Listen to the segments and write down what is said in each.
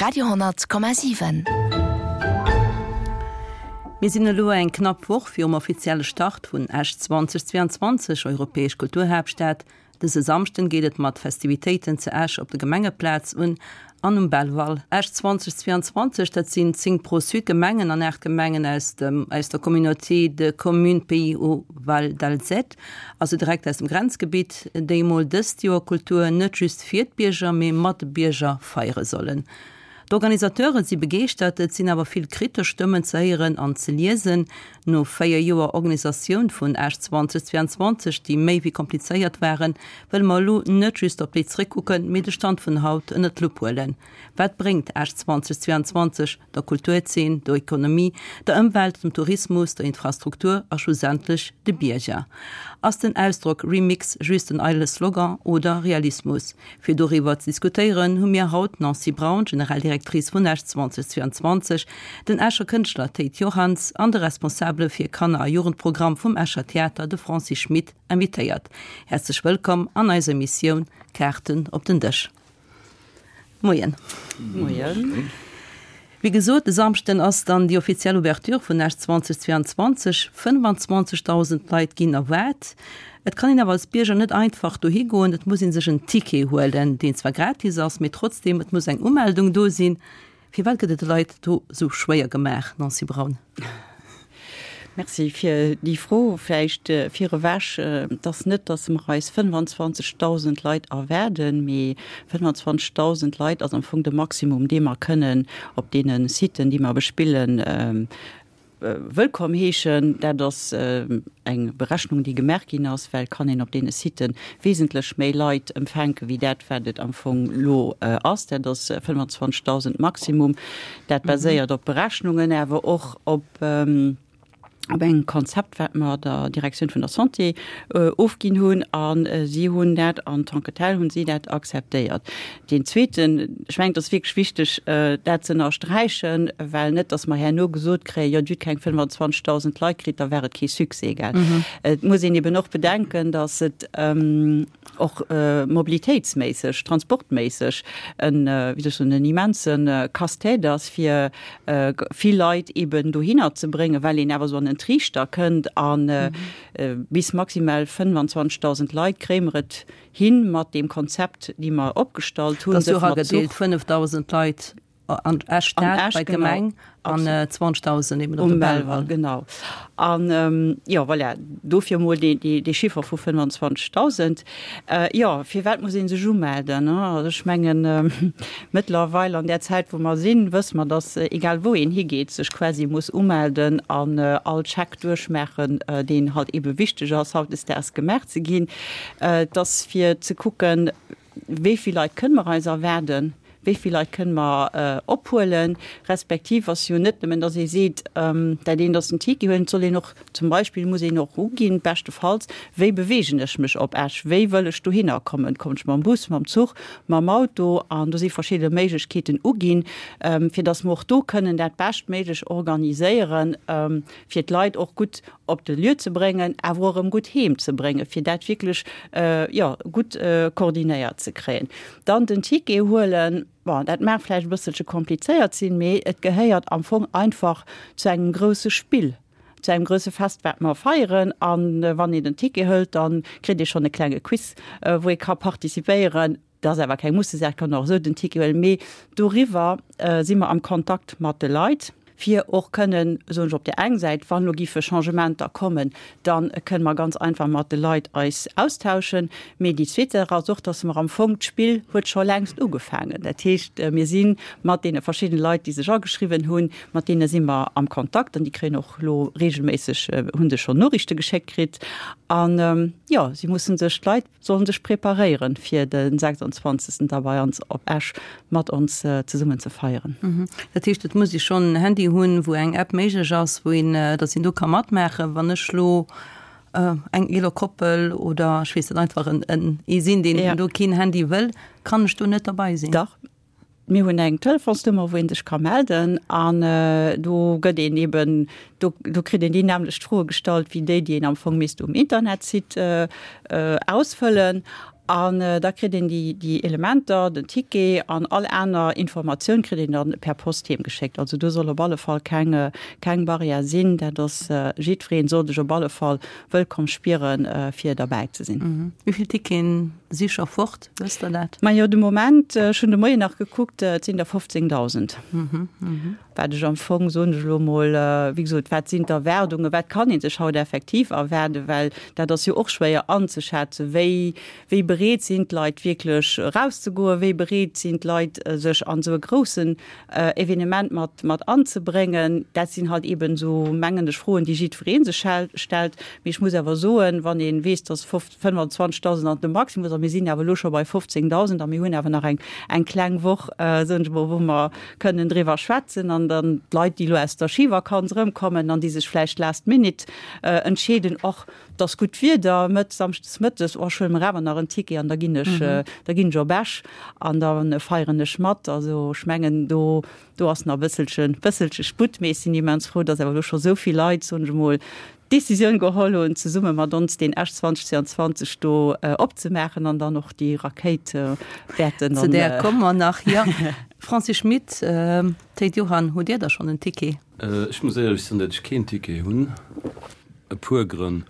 Radio,7. Mir sinn elo eng knapp Woch virum offizielle Start vun Esch 2022, Europäesch Kulturhaaptstad. Dëse Samschden geet et mat Festivitéiten zu Esch op der Gemengeplaz un an um Belval. Esch 2022, dat sinn 10 Pro-Sud Gemengen an 8 Gemengen aus dem aus der Communauté de Communes Pays Haut Val d'Alzette, also direkt aus dem Grenzgebitt, déi emol dëst Joer Kultur net just fir d'Bierger, mee mat de Bierger feiere sollen. D'Organisateure si begeeschtert, et sinn awer vill kritesch Stëmmen ze héieren an ze liesen. No 4 Joer Organisatioun vun Esch 2022, déi méi wéi komplizéiert waren, wëlle mer elo net just op déi zréckkucken, mee de Stand vun haut ënnert d'Lupp huelen. Wat bréngt Esch 2022 der Kulturzeen, der Ekonomie, der Ëmwelt, dem Tourismus, der Infrastruktur a schlussendlech de Bierger? Ass den Ausdrock Remix just en eidele Slogan oder Realismus? Fir doriwwer ze diskutéieren, hu mir haut d'Nancy Braun, Generaldirectrice vun Esch 2022, den Escher Kënschtler Théid Johanns an de Responsabele fir Kanner a Jugendprogramm vum Escher Theater, de Francis Schmit, invitéiert. Häerzlech wëllkomm an eiser Emissioun Kaarten op den Dësch. Moien. Moien. Wéi gesot, e Samschden ass dann déi offiziell Ouverture vun Esch 2022. 25.000 Leit ginn erwaart. Et kann een awer als Bierger net einfach dohi goen, et muss ee sech en Ticket huelen, deen zwar gratis ass, mee trotzdeem, et muss eng Umeldung do sinn. Firwat gëtt et de Leit do esou schwéier gemaach, Nancy Braun? Merci fir déi Fro. Vläicht virewech, Et ass net, datt mer eis 25.000 Leit erwaarden, mee 25.000 Leit ass am Fong de Maximum, dee mer kënnen op deene Siten, déi mer bespillen, wëllkomm heeschen. Dat ass eng Berechnung, déi gemaach ginn ass, well et kann een op deene Sitë wesentlech méi Leit empfänke wéi dat, wat et am Fong elo ass. Dat ass 25.000 Maximum. Dat baséiert op Berechnungen, awer och op op engem Konzept, wat mer der Direktioun vun der Santé ofginn hunn. A si hunn dat en tant que tel hunn si dat akzeptéiert. Deen zweeten, ech mengen, et ass wierklech wichteg, dat ze ënnersträichen, well net, datt mer herno gesot kréien, jo, Dir hutt keng 25.000 Leit kritt, da war et kee Succès, gell. Et muss een eben och bedenken, datt et och mobilitéitsméisseg, transportméisseg en, wéi soll ech soen, en immense Casse-tête ass, fir vill Leit eben dohinner ze bréngen, well een awer esou an en Triichter kënnt a bis maximal 25.000 Leit kréie mer et hin mat deem Konzept, déi mer opgestallt hunn. Dat ass jo eragedeelt, 5.000 Leit an Esch Stad bei d'Gemeng an 20.000 eben op de Belval. Genau. An jo, voilà, dofir emol dee Chiffer vu 25.000. Jo, firwat muss ee sech umelden? Also ech mengen, mëttlerweil an där Zäit, wou mer sinn, wësse mer, datt egal wou een higeet, sech quasi muss umelden an all Check duerchmaachen, deen halt ebe wichteg ass, hautdesdaags gemaach ze ginn. Et ass fir ze kucken, wéi vill Leit kënne mer eis erwaarden, wéi vill Leit kënne mer ophuelen, respektiv ass jo net nëmmen, datt ee seet, dat eent ass den Ticket huelen, et soll een och zum Beispill muss een och uginn, beschtefalls, wéi beweegen ech mech op Esch, wéi wëll ech dohinner kommen, kommen ech mam Bus, mam Zuch, mam Auto, an do si verschidde Méiglechkeeten uginn, fir datt mer och do kënnen dat beschtméiglech organiséieren, fir d'Leit och gutt op de Lieu ze bréngen, awer och erëm gutt heem ze bréngen, fir dat wierklech, jo, gutt koordinéiert ze kréien. Dann den Ticket huelen, bon, dat mag vläicht e bësselche komplizéiert sinn, mee et gehéiert am Fong einfach zu engem grousse Spill, zu engem grousse Fest, wat mer feieren. A wann een den Ticket hëlt, da kritt ee schonn e klenge Quiz, wou ee ka participéieren. Dat ass awer keng Mussesaach, kann och esou den Ticket huelen. Mee doriwwer si mer am Kontakt mat de Leit, fir och kënnen, soen ech, op där eng Säit, wann elo giffe Changementer kommen, da kënne mer ganz einfach mat de Leit eis austauschen. Mee déi zweet Saach ass och, dass mer am Fong, d'Spill huet scho längst ugefaangen. Dat heescht, mir si mat deene verschiddene Leit, déi sech ageschriwwen hunn, mat deene si mer am Kontakt an déi kréien och elo regelméisseg, hu se schonn Noriichte geschéckt kritt. An jo, si musse sech, d'Leit, Sollen sech preparéieren fir de 26 da bei ons op Esch mat ons zesummen ze feieren. Dat heescht et muss ee schonn en Handy hunn wou eng App méiglech ass, wou een, datt een do ka matmaachen. Wann ech lo eng eeler Koppel oder ech weess net einfach en en ee sinn deen do keen Handy wëll, kann ech do net derbei sinn? Dach, Mir hunn eng Telefonsnummer, wou ee sech ka melden an do gëtt een eben, do do kritt een déi nämmlecht Froe gestallt wéi déi, déi een am Fong misst um Internetsite ausfëllen. An da kritt een déi, déi Elementer, den Ticket an all aner Informatioun kritt een dann per Post heem geschéckt. Also do soll op alle Fall keng, keng Barrière sinn. Dat ass, jiddwereen soll sech op alle Fall wëllkomm spieren, fir derbäi ze sinn. Wéi vill Ticketen si scho fort? Wësst Der dat? Majo, de Moment, ech hunn de Moien nach gekuckt, et sinn der 15.000. Wat ech am Fong, soen ech elo emol, wéi gesot, wat sinn d'Erwaardungen, wat kann ee sech haut effektiv erwaarden, well dat ass jo och schwéier anzeschätzen, wéi, wéi bereet sinn d'Leit wierklech erauszegoen, wéi bereet sinn d'Leit sech an esou e groussen Evenement mat, mat anzebréngen. Dat sinn halt eeben esou, mengen ech, Froen, déi jiddweree sech stellt. Mee ech muss awer soen, wann ee weess, dass 25.000 an de Maximus a mir sinn awer elo scho bei 15.000 a mir hunn awer nach eng, eng kleng Woch, soen ech emol, wou mer kënnen driwwer schwätzen an dann d'Leit, déi elo aus der Schivakanz erëmkommen an déi sech vläicht last minute entscheeden, och et ass gutt Wieder, mëtt, samschdes mëttes, oh ech huele mer awer nach en Ticket an da ginn ech, da ginn ech op Esch an da feieren ech mat. Also ech mengen do, do ass nach e bësselche, bësselche Sputt, mee ech sinn immens frou, dass awer elo scho esou vill Leit, soen ech emol, d'Decisioun geholl hunn, zesumme mat ons deen Esch 2022 do opzemaachen an dann och déi Rakéit wäerten. Zu där komme mer nach, jo. Francis Schmit, Théid Johann, hutt Dir da schonn en Ticket? Ech muss éierlech soen, datt ech keen Ticket hunn. E puer Grënn.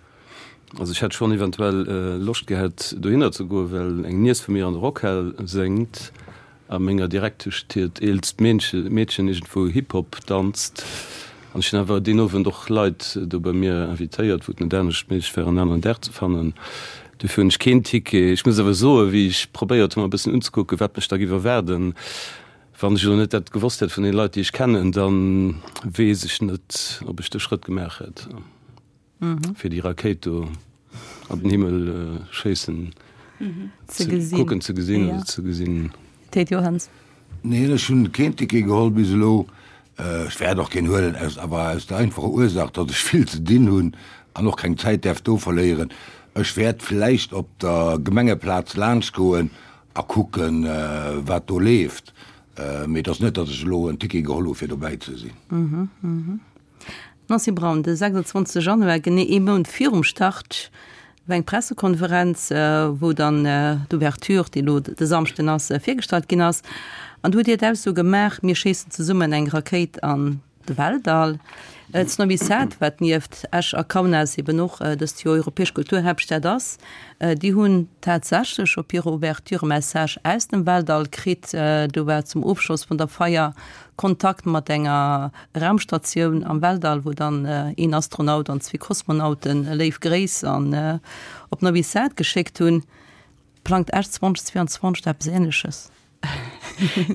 Also ech hätt schonn eventuell Loscht gehat dohinner ze goen, well eng Niess vu mir an der Rockhal séngt. A menger Direktesch hiert eelst Meedchen iergendwou Hip-Hop danzt. An ech hunn awer deen Owend och Leit do bei mir invitéiert, wou et net anescht méiglech war, en aneren Dag ze fannen. Dofir hunn ech keen Ticket. Ech muss awer soen, wéi ech probéiert hunn, mer e bëssen unzekucken, wat mech da géif erwaarden, wann ech elo net dat gewosst hätt vun den Leit, déi ech kennen, da weess ech net, ob ech de Schrëtt gemaach hätt. Fir déi Rakéit do an den Himmel schéissen ze gesinn, kucken ze gesinn oder ze gesinn. Ted Johanns. Neen, ech hunn keen Ticket geholl bis elo. Ech wäert och keen huelen, aus awer aus der einfacher Ursaach, datt ech vill ze dinn hunn an och keng Zäit däerf do verléieren. Ech wäert vläicht op der Gemengeplaz laanschtgoen a kucken, wat do leeft, mee et ass net, datt ech elo en Ticket geholl hu fir dobäi ze sinn. Nancy Braun, De 26 Januar, genee ee Mount virum Start, war eng Pressekonferenz, wou dann d'Ouverture, déi elo de Samschden ass, virgestallt ginn ass. An do hutt Dir d'Ausso gemaach, Mir schéissen zesummen eng Rakéit an de Weltall. Zu Novi Sad, wat nieft Esch a Kaunas eben och dëst Joer europäesch Kulturhaaptstad ass, déi hunn tatsächlech op hirer Ouverture e Message aus dem Weltall kritt. Do war zum Ofschloss vun der Feier Kontakt mat enger Raumstatioun am Weltall, wou dann een Astronaut an zwee Kosmonauten léif Gréiss an op Novi Sad geschéckt hunn. Plangt Esch 2022 da eppes Ähnleches?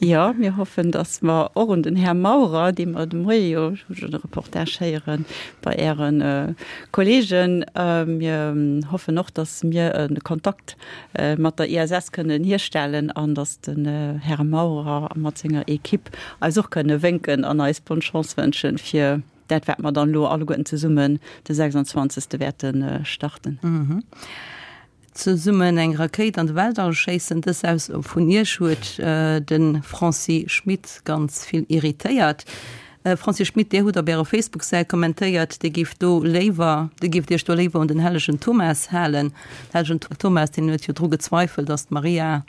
Jo, mir hoffen, datt mer och un den Här Maurer, dee mer de Moie jo, ech hu schonn e Reportage héieren bei Äre Kollegen, mir hoffen och, datt mir e Kontakt mat der ISS kënnen hierstellen an datt den Här Maurer mat senger Equipe eis och kënne wénken an eis bonne Chance wënschen fir dat wat mer dann elo alleguerten zesummen de 26. wäerte starten. Zesummen eng Rakéit an de Weltall schéissen, dës Ausso vun Iech huet de Francis Schmit ganz vill irritéiert. Francis Schmit, Dir hutt op Ärer Facebook-Säit kommentéiert, Dir giff do léiwer, Dir gifft Iech do léiwer un den hellegen Thomas halen. Den hellegen Thomas, deen huet jo dru gezweifelt, datt d'Maria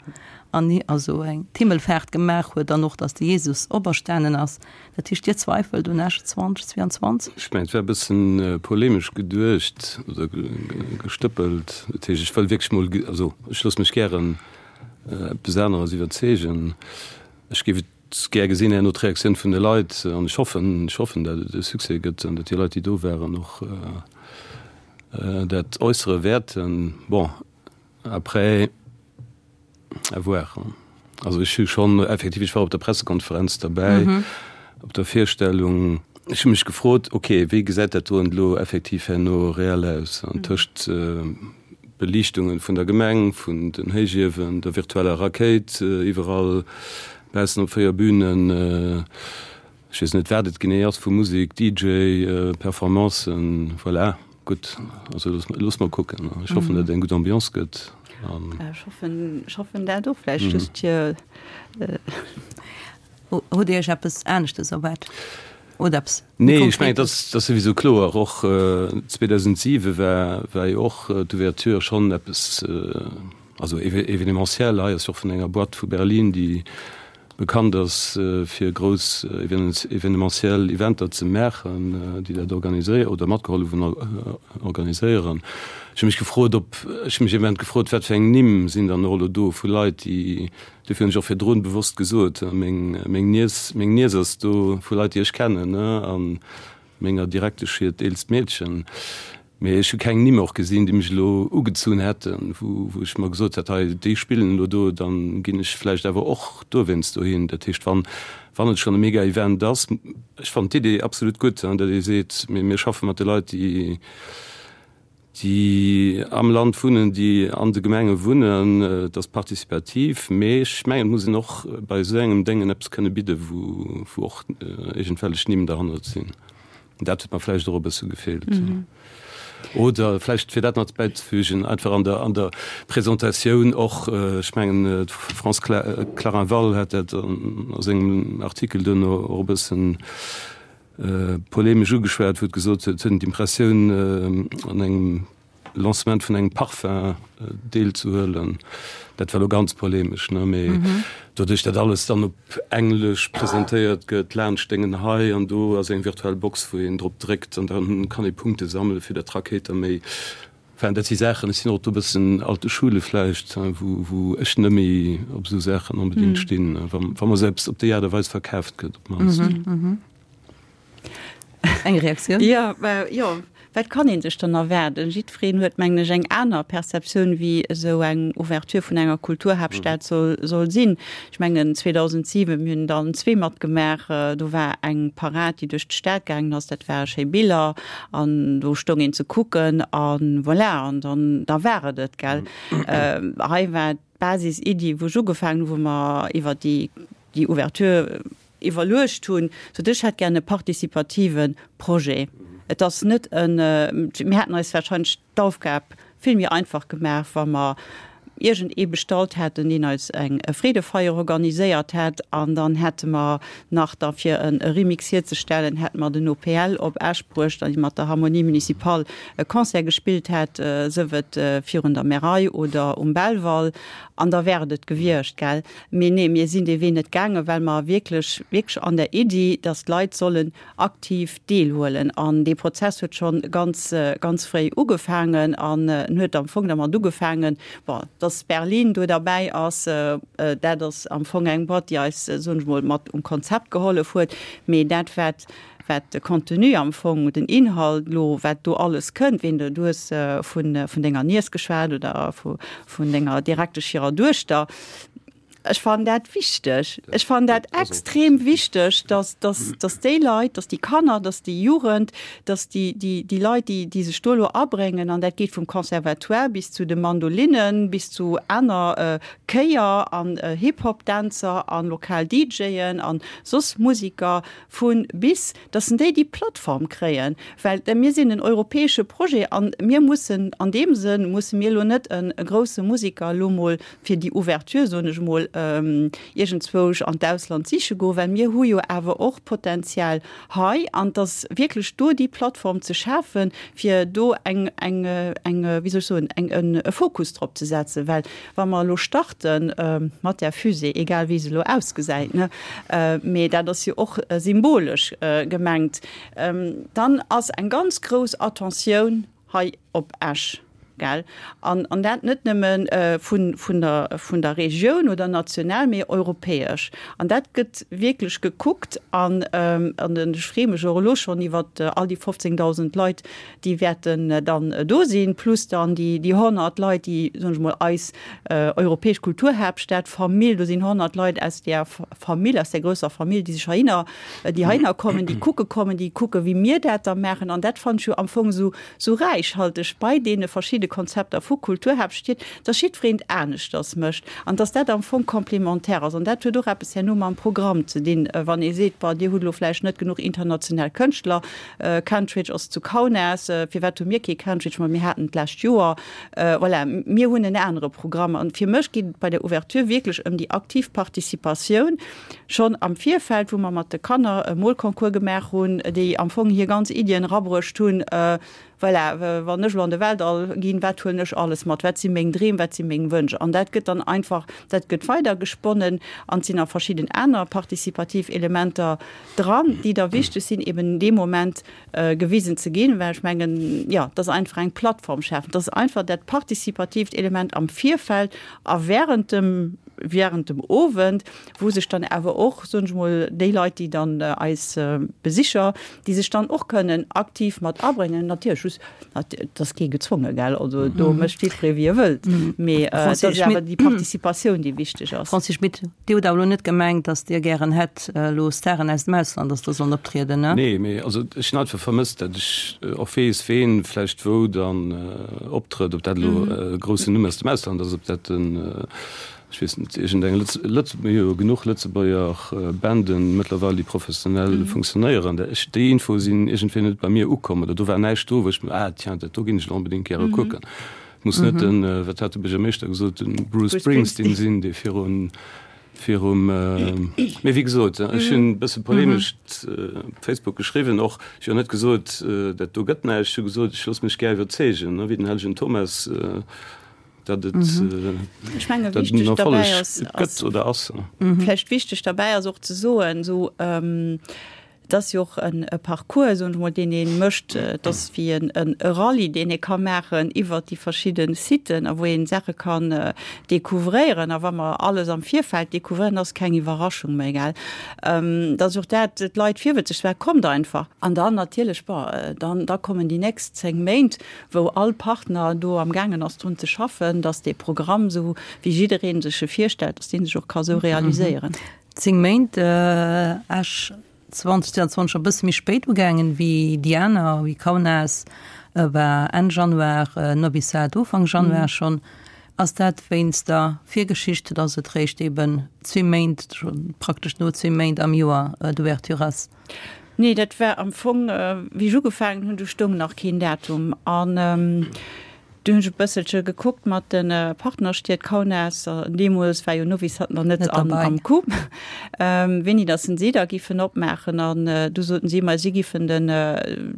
an also eng d'Himmelfaart gemaach huet an och datt de Jesus operstanen ass. Dat heescht, Dir zweifelt un Esch 2022? Ech mengen, et war e bëssen polemesch geduecht oder gestëppelt. Dat heescht, ech wëll wierklech mol, also ech loosse mech gären eppes aneres iwwerzeegen. Ech géif et Gär gesinn herno d'Reaktioun vun de Leit an ech hoffen, ech hoffen, dat et e Succès gëtt an dat déi Leit, déi do waren, och dat äussere wäerten. Bon, après, à voir. Also ech hu schonn effektiv, ech war op der Pressekonferenz derbäi, op der Virstellung. Ech hu mech gefrot, okay, wéi gesäit dat doen elo effektiv herno reell aus? An tëscht Beliichtungen vun der Gemeng, vun den Héichiewen, der virtueller Rakéit iwwerall baussen op 4 Bünen, ech weess net wat et genee ass, vu Musek, DJ, Performancen, voilà, gutt, also loosse mer kucken. Ech hoffen, datt et eng gutt Ambiance gëtt. Ech hoffen, ech hoffen dat och, vläicht just fir. Hutt Dir Iech eppes aneschtes erwaart oder eppes méi Nee, ech mengen, dat ass souwisou kloer. Och 2007 war, war jo och d'Ouverture schonn eppes. Also événementiel, hei ass jo och vun enger Boîte vu Berlin, déi bekannt ass fir grouss événementiel Eventer ze maachen, déi dat organiséieren oder matgehollef hunn organiséieren. Ech hu mech gefrot, ob, ech hu mech ee Moment gefrot, wat fir eng Nimm sinn dann och elo do vu Leit, déi, dofir hunn ech och virdrun bewosst gesot, meng, meng Niess, meng Niess ass do, vu Leit, déi ech kennen, an menger Direktesch hiert eelst Meedchen. Mee ech hu keng Nimm och gesinn, déi mech elo ugezunn hätten, wou ech mer gesot hätt, hei déi spillen elo do, dann ginn ech vläicht awer och dowéinst dohin. Dat heescht, wann, wann et schonn e Mega-Event ass, ech fannen d'Idee absolut gutt, datt ee seet, mir, mir schaffe mat de Leit, déi, déi am Land wunnen, déi an de Gemenge wunnen, et ass participativ. Mee ech mengen, et muss een och bei esou engem Déngen eppes kënne bidden, wou, wou och iergendwellech Nimm derhannert sinn. Dat huet mer vläicht och e bësse gefeelt. Oder vläicht, fir dat nach bäizefügen, einfach an der, an der Presentatioun och, ech mengen, d'France Clarinval hat dat a sengem Artikel duerno och e bëssen polemesch ugeschwat, wou et gesot huet, et huet een d'Impressioun, an engem Lancement vun engem Parfum deelzehuelen. Dat war elo ganz polemesch, ne, mee doduerch, dat alles dann op Englesch presentéiert gëtt, laanscht Déngen hei an do ass eng virtuell Box, wou een drop dréckt an dann kann ee Punkte sammele fir datt d'Rakéit da méi. Enfin, dat si Saachen, ech sinn och do e bëssen alte Schule vläicht, wou, wou ech net méi op esou Saachen onbedéngt stinn, wa, wa mer se eppes op déi Aart a Weis verkaaft gëtt op d'mannst. Eng Reaktioun? Jo, jo, wat kann ee sech dann erwaarden? Jiddwereen huet, mengen ech, eng aner Perceptioun, wéi esou eng Ouverture vun enger Kulturhaaptstad soll, soll sinn. Ech mengen, 2007, mir hunn dann zwee matgemaach, do war eng Parad, déi duerch d'Stad gaangen ass, dat ware schéi Biller an do stoung een ze kucken a voilà, an dann, da war et et, gell. Hei war d'Basis-Iddi, wou ech ugefaangen hu, wou mer iwwer déi, déi Ouverture Iwwerluecht hunn, sot ech hätt gär e participative Projet. Et ass net en, mir hätten eis wahrscheinlech d'Aufgab vill méi einfach gemaach, wa mer iergend ee bestallt hätten, deen eis eng Freedefeier organiséiert hätt an dann hätte mer nach da fir e Remix hierzestellen, hätte mer den OPL op Esch bruecht an mat der Harmonie Municipale e Concert gespillt hätt, sëf et virun der Märei oder um Belval, an da wär et et gewiescht, gell. Mee nee, mir sinn dee Wee net gaangen, well mer wierklech, wierklech an der Iddi, dass d'Leit sollen aktiv deelhuelen. An dee Prozess huet scho ganz, ganz fréi ugefaangen an en huet am Fong dermat ugefaangen, bon, dass Berlin do derbäi ass, dat ass am Fong eng Boîte, déi eis, soen ech mol, mat um Konzept gehollef huet. Mee dat, wat, wat de Contenu am Fong, den Inhalt elo, wat do alles kënnt, ween du, du hues vun, vun denger Niess geschwat oder vu, vun denger Direktesch hirer Duechter, Ech fannen dat wichteg. Ech fannen dat extrem wichteg, dass, dass, dass déi Leit, dass déi Kanner, dass déi Jugend, dass déi, déi, déi Leit, déi, déi sech do elo abréngen, an dat geet vum Conservatoire bis zu de Mandolinnen, bis zu aner Chéier an Hip-Hop-Dänzer a lokal DJen a soss Musiker vu bis, dass en déi déi Plattform kréien, well mir sinn en europäesche Projet a mir mussen an deem Sënn musse mir elo net e grousse Musiker elo mol fir déi Ouverture, soen ech emol, iergendzwousch an d'Ausland siche goen, well mir hu jo awer och Potenzial hei an dass wierklech do déi Plattform ze schafen, fir do eng, eng, eng, wéi soll ech soen, eng, e Fokus drop ze setzen, well wa mer elo starte mat där Fusée, egal wéi se elo ausgesäit, ne, mee dat ass jo och symbolesch gemengt, dann ass eng ganz grouss Attentioun hei op Esch, gell, an, an dat net nëmme vun, vun der, vun der Regioun oder national, mee europäesch. An dat gëtt wierklech gekuckt an, an ech freeë mech och elo schonn iwwert all déi 15.000 Leit, déi wäerten dann do sinn, plus dann déi, déi 100 Leit, déi, soen ech mol, eis europäesch Kulturhaaptstad Famill, do sinn 100 Leit aus där Famill, aus där grousser Famill, déi sech heihinner, déi heihinner kommen, déi kucke kommen, déi kucke wéi mir dat da maachen. An dat fannen ech jo am Fong esou, esou räichhalteg bei deene verschidde Konzepter vu Kulturhaaptstied, dass jiddwereen et aneschters mécht an dass dat am Fong complémentaire ass. An dat huet och eppes herno mam Programm ze dinn, wann ee seet, Bon, dir hutt elo vläicht net genuch international Kënschtler, Kentridge ass zu Kaunas. Firwat hu mir kee Kentridge? Ma mir haten d'lescht Joer. Voilà, mir hunn en anere Programm. An fir mech geet et bei der Ouverture wierklech ëm déi aktiv Participatioun schonn am Virfeld, wou mer mat de Kanner e Molconcours gemaach hunn, déi am Fong hir ganz Iddien erabruecht hunn. Voilà, wann ech elo an de Weltall ginn, wat huelen ech alles mat, wat si meng Dreem, wat si meng Wënsch? An dat gëtt dann einfach, dat gëtt weidergesponnen an et sinn nach verschidden aner partizipativ Elementer dran, déi da wichteg sinn, eben dee Moment gewisen ze ginn, well ech mengen, jo, dass einfach eng Plattform schafen, dass einfach dat partizipatiivt Element am Virfeld a während dem, während dem Owend, wou sech dann awer och, soen ech mol, déi Leit, déi dann eis Besicher, déi sech dann och kënnen aktiv mat abréngen, natierlech just, et ass kee gezwonge, gell, also do mécht jiddweree wéi e wëllt, mee et ass awer déi Participatioun, déi wichteg ass. Francis Schmit, Dir hutt awer elo net gemengt, datt Dir gären hätt elo Staren aus dem Ausland, datt do sollen optrieden, ne? Nee, mee also ech hunn einfach vermësst, datt ech och weess, ween vläicht wou dann optrëtt, ob dat elo e groussen Numm aus dem Ausland ass, ob dat den, ech weess net, iergendeng Lëtz, Lëtz, mir hu jo genuch Lëtzebuerger Banden mëttlerweil, déi professionell funktionéieren. Ech, déi Infoe sinn iergendwéi net bei mir ukomm oder do war näischt do, wou ech mir, ah tiens, dat do ginn ech elo onbedéngt gäre kucken. Et muss net den, wat hat de Buergermeeschter gesot, den Bruce Springsteen sinn, dee virun, virum, mee wéi gesot, ech hunn e bësse polemesch op Facebook geschriwwen och, ech hu jo net gesot, dat do gëtt näischt, ech hu gesot, ech loosse mech gär iwwerzeegen, wéi den hellegen Thomas, datt et, Ech menge datt et en wichteg Erfolleg derbäi ass, gëtt oder ass. Vläicht wichteg derbäi ass och ze soen, esou, Et ass jo och e Parcours, soen ech mol, deen ee mécht. Et ass wéi e Rallye, deen ee ka maachen iwwert déi verschidde Siten a wou ee Saache kann découvréieren. A wa mer alles am Virfeld découvréieren, ass keng Iwwerraschung méi, gell. Et ass och dat, d'Leit virwëtzeg ze maachen, Kommt einfach! An dann natierlech, bon, dann da kommen déi nächst 10 Méint, wou all Partner do amgaangen ass drun ze schaffen, dass dee Programm, esou wéi jidderee sech e virstellt, dass dee sech och ka sou realiséieren. 10 Méint, Esch 2022 e bësse méi spéit ugaangen wéi déi aner, wéi Kaunas war Enn Januar, Novi Sad Ufank Januar schonn. Ass dat wéinst der Virgeschicht, datt et réischt eben zwee Méint, praktesch no zwee Méint am Joer d'Ouverture ass? Nee, dat war am Fong, wéi ech ugefaangen hunn, do stoung nach keen Datum. An Du hunn ech e bësselche gekuckt mat de Partnerstied Kaunas, deemools war jo Novi Sad nach net am Coup, wéini datt se da giffen opmaachen. An du soten si, ma si giffen den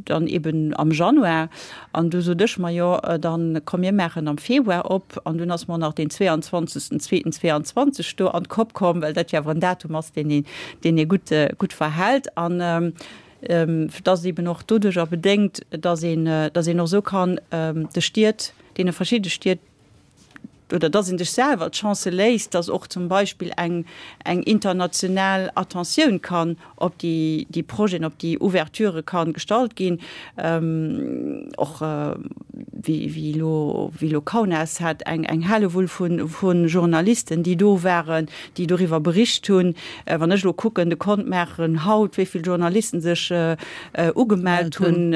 dann eben am Januar. An du sot ech, ma jo, dann komm mir maachen am Februar op. An dunn ass mer nach deen 22. Zweeten 22 do an d'Kopp komm, well dat jo awer en Datum ass, deen een, deen ee gutt, gutt verhält. An Et ass eben och doduercher bedéngt, dass een, dass een och esou kann de Stied, deene verschidde Stied, oder dass ee sech selwer d'Chance léisst, dass och zum Beispill eng, eng international Attentioun kann op déi, déi Projeten, op déi Ouverturë ka gestallt ginn. Och wéi, wéi elo, wéi elo Kaunas hat eng, eng Hellewull vu, vu Journalisten, déi do waren, déi doriwwer bericht hunn. Wann ech elo kucken, de Kont maachen haut, wéi vill Journalisten sech ugemellt hunn,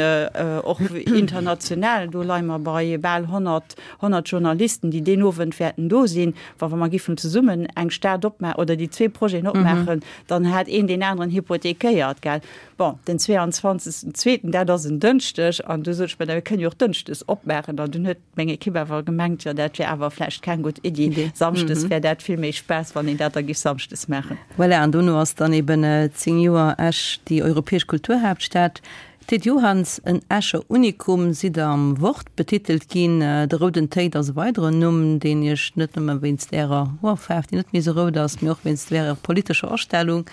och international, do leie mer bei bal 100, 100 Journalisten, déi deen Owend wäerten do sinn. Wa mer giffen zesummen eng Stad opmaachen oder déi zwee Projeten opmaachen, dann hätt een deen aneren hypothekéiert, gell. Bon, den 22. Zweeten, dat ass en Dënschdeg, an du sot ech, mä da mir kënnen jo och dënschdes opmaachen. An dunn huet meng Ekipp awer gemengt, jo dat wär awer vläicht keng gutt Iddi, samschdes wär dat vill méi Spaass, wann een dat da giff samschdes maachen. Voilà, an dono ass dann eben 10 Joer Esch déi europäesch Kulturhaaptstad. Théid Johanns, en Escher Unikum, sidd Der am Wort betitelt ginn. De Rouden Théid ass e weideren Numm, deen Iech net nëmme wéinst Ärer Hoerfaarf, déi net méi esou rout ass, mee och wéinst Ärer politescher Astellung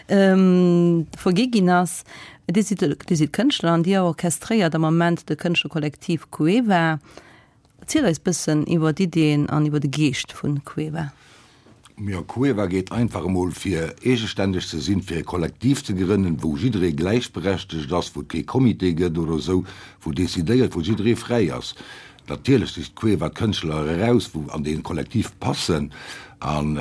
vergi ginn ass. Dir sidd Dir sidd Kënschtler an Dir orchestréiert am Moment de Kënschtlerkollektiv Cueva. Erzielt eis bëssen iwwer d'Iddien an iwwer de Geescht vu Cueva. Jo, Cueva geet einfach emol fir eegestänneg ze sinn, fir e Kollektiv ze grënnen, wou jidderee gläichberechtegt ass, wou et kee Comité gëtt oder esou, wou decidéiert, wou jidderee fräi ass. Natierlech sicht d'Cueva d'Kënschtler eraus, wou an dee Kollektiv passen. An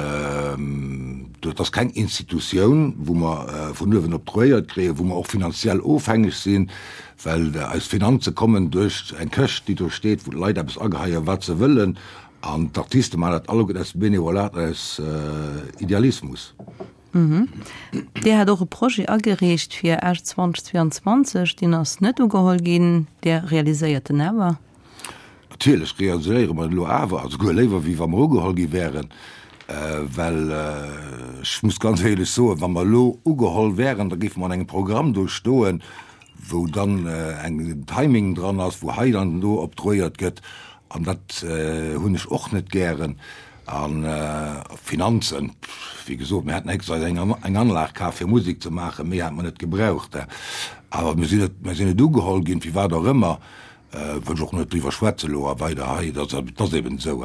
dat ass keng Institutioun, wou mer vun uewen oktroyéiert kréien, wou mer och finanziell ofhängeg sinn, well eis Finanze kommen duerch eng Këscht, déi do steet, wou d'Leit eppes ageheien, wat se wëllen. An d'Artiste maachen dat alleguerten aus Benevolat an aus Idealismus. Dir hat och e Projet agereecht fir Esch 2022, deen ass net ugeholl ginn. Dir realiséiert en awer? Natierlech realiséiere mer en elo awer, a souguer léiwer wéi wa mer ugeholl gi wären, well ech muss ganz éierlech soen, wa mer elo ugeholl wären, da géife mer an engem Programm do stoen. wou dann eng Timing dran ass, wou hei an do obtruéiert gëtt, an dat hunn ech och net gären. A Finanzen, wéi gesot, mir haten extra eis eng Anlag kaf fir Musek ze maachen, méi hate mer net gebraucht. Awer mir sinn net, mir sinn net ugeholl ginn, firwat och ëmmer, wëll ech och net driwwer schwätze elo a weider hei, dat ass eben esou.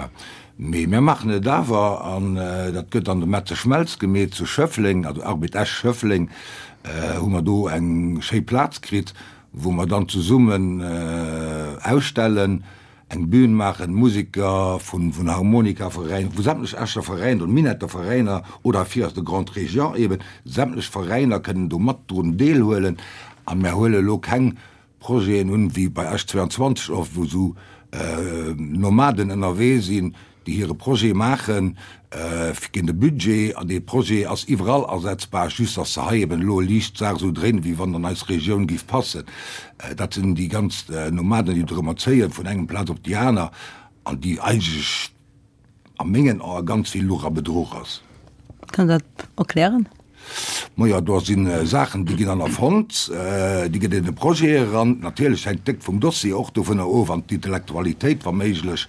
Mee mir maachen et awer, an dat gëtt an de Metze Schmelz gemeet zu Schëffleng, also Arbed Esch-Schëffleng, hu mer do eng schéi Plaz kritt, wou mer dann zesummen ausstellen, eng Bühn maachen, Museker vun vun Harmonikaveräin, vu sämtlech Escher Veräiner oder Minetter Veräiner oder fir aus der Grande Région eben, sämtlech Veräiner kënnen do mat drun deelhuelen. A mär huele elo keng Projeten un, wéi bei Esch 22 oft, wou esou Nomaden ënnerwee sinn, déi hire Projet maachen, géint e Budget, an dee Projet ass iwwerall asetzbar, just dass se hei eben elo liicht d'Saach esou dréinen, wéi wann an eis Regioun géif passen. Dat sinn déi ganz Nomaden, déi dorëmmer zéien, vun engem Plaz op déi aner, an déi eigentlech a mengen Ae ganz vill Luch a Bedruch ass. Kann Der dat erklären? Majo, do si Saachen, déi ginn dann erfonnt, déi gëtt an de Projet eran. Natierlech hänkt déck vum Dossier och dovunner of an d'Intellektualitéit wa méiglech.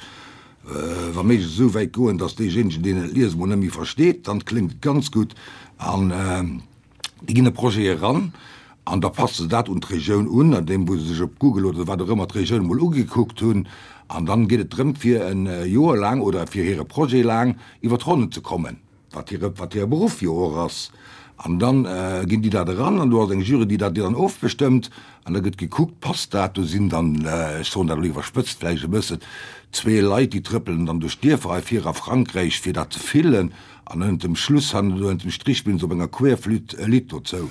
Wa méiglech esou wäit goen, datt deejéinegen, deen et liest, emol net méi versteet, dann kléngt et ganz gutt. An déi ginn e Projet eran an da passe se dat un d'Regioun un, an deem wou se sech op Google oder wat och ëmmer d'Regioun emol ugekuckt hunn. An dann geet et drëm, fir e Joer laang oder fir hire Projet laang iwwer d'Ronnen ze kommen. Wat hire, wat hire Beruff jo och ass. An dann ginn déi dat eran an do ass eng Jury, déi dat dann ofbestëmmt an da gëtt gekuckt, passt dat. Do sinn dann, ech soen dat elo iwwerspëtzt vläicht e bëssen, zwee Leit, déi trëppelen dann duerch d'Dierfer hei vir a Frankräich, fir dat ze fillen an ënnert dem Schluss hannen do ënnert dem Strich spillen se op enger Querflütt e Lidd dozou.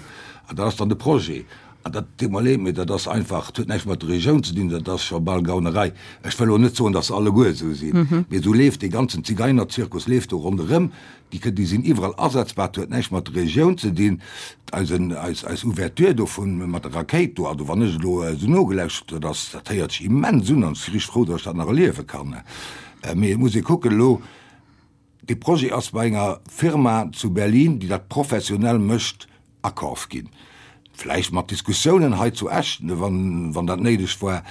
An dat ass dann de Projet. An dat deet mer leed, mee dat ass einfach, dat huet näischt mat der Regioun ze dinn, dat ass scho bal Gaunerei. Ech wëll elo net soen, datt se alleguer esou sinn, mee esou leeft dee ganzen Zigeinerzirkus leeft do ronderëm. Déi kënn, déi sinn iwwerall asetzbar, dat huet näischt mat der Regioun ze dinn. Eisen, eis, eis Ouverture dovun mat der Rakéit do, also wann ech elo esou nogelauschtert hunn, dat ass, dat héiert sech immens un an ech si richteg frou, datt ech dat nach erliewe kann. Mee et muss ee kucken elo, Dee Projet ass bei enger Firma zu Berlin, déi dat professionell mécht, akaf ginn. Vläicht mat Diskussiounen hei zu Esch, wann dat néideg war.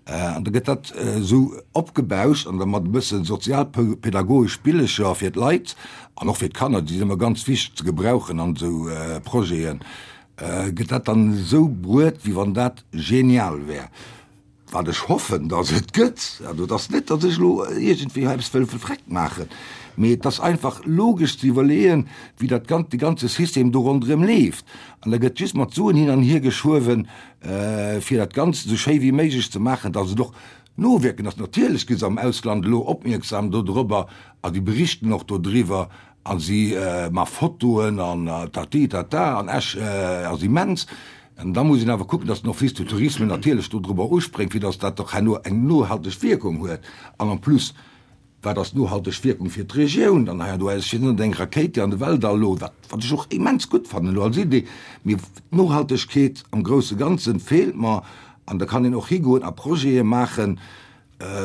An da gëtt dat esou opgebauscht an da mat e bësse sozialpädagogesch Spillecher fir d'Leit an och fir d'Kanner, déi sinn ëmmer ganz wichteg ze gebrauchen an esou Projeten, gëtt dat dann esou bruet, wéi wann dat genial wär. Wat ech hoffen, datt et gëtt, also et ass net, datt ech elo iergendwéi hei eppes wëll vreckt maachen, mee et ass einfach logesch ze iwwerleeën, wéi dat gan-, de ganze System do ronderëm leeft. An da gëtt just mat Suen hin an hier geschuewen, fir dat Ganzt esou schéi wéi méiglech ze maachen, datt et och nowierken ass. Natierlech gi se am Ausland elo opmierksam dodrobber a si berichten och dodriwwer a si ma Fotoen an tati tata an Esch ass immens. An da muss een awer kucken, dass den Office du Tourisme natierlech dodrobber uspréngt, fir dass dat och herno eng nohalteg Wierkung huet. An en plus, wat ass d'nohalteg Wierkung fir d'Regioun dann hei an do? Ech sinn net eng Rakéit, déi an de Weltall elo, wat, wat ech och immens gutt fannen elo als Idee, mee d'Nohaltegkeet am grousse Ganze feelt mer. An da kann een och higoen a Projete maachen,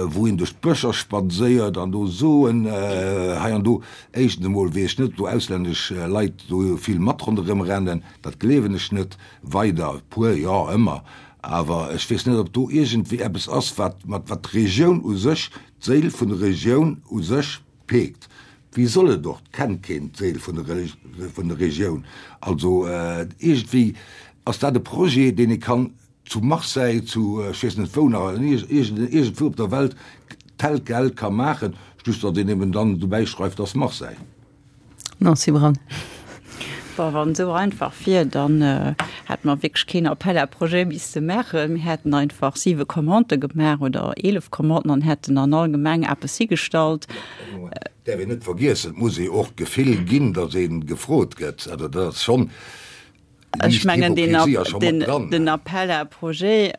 wou een duerch d'Bëscher spadséiert an do soen hei an do, éischtens emol weess ech net, ob do auslännesch Leit do vill mat ronderëm rennen, dat gleewen ech net, weider, e puer jo, ëmmer, awer ech weess net, ob do iergendwéi eppes ass, wat mat wat d'Regioun u sech, d'Séil vun der Regioun u sech peekt. Wéi soll et och, 't kennt keen d'Séil vun der vun der Regioun. Also iergendwéi ass dat e Projet, deen ee kann zu Marseille, zu ech weess net wou nach, iergendwou op der Welt tel quel ka maachen, just datt een eben dann dobäi schreift, ass Marseille. Nancy Braun. Bon, wann et esou einfach wier, dann hätte mer wierklech keen Appel à projets misste maachen. Mir hätten einfach siwe Commandë gemaach oder 11 Commanden an hätten an all Gemeng eppes higestallt. Et däerf een net vergiessen, et muss ee och d'Gefill ginn, datt ee gefrot gëtt. Also dat ass schonn. Ech mengen, den Appel à projets,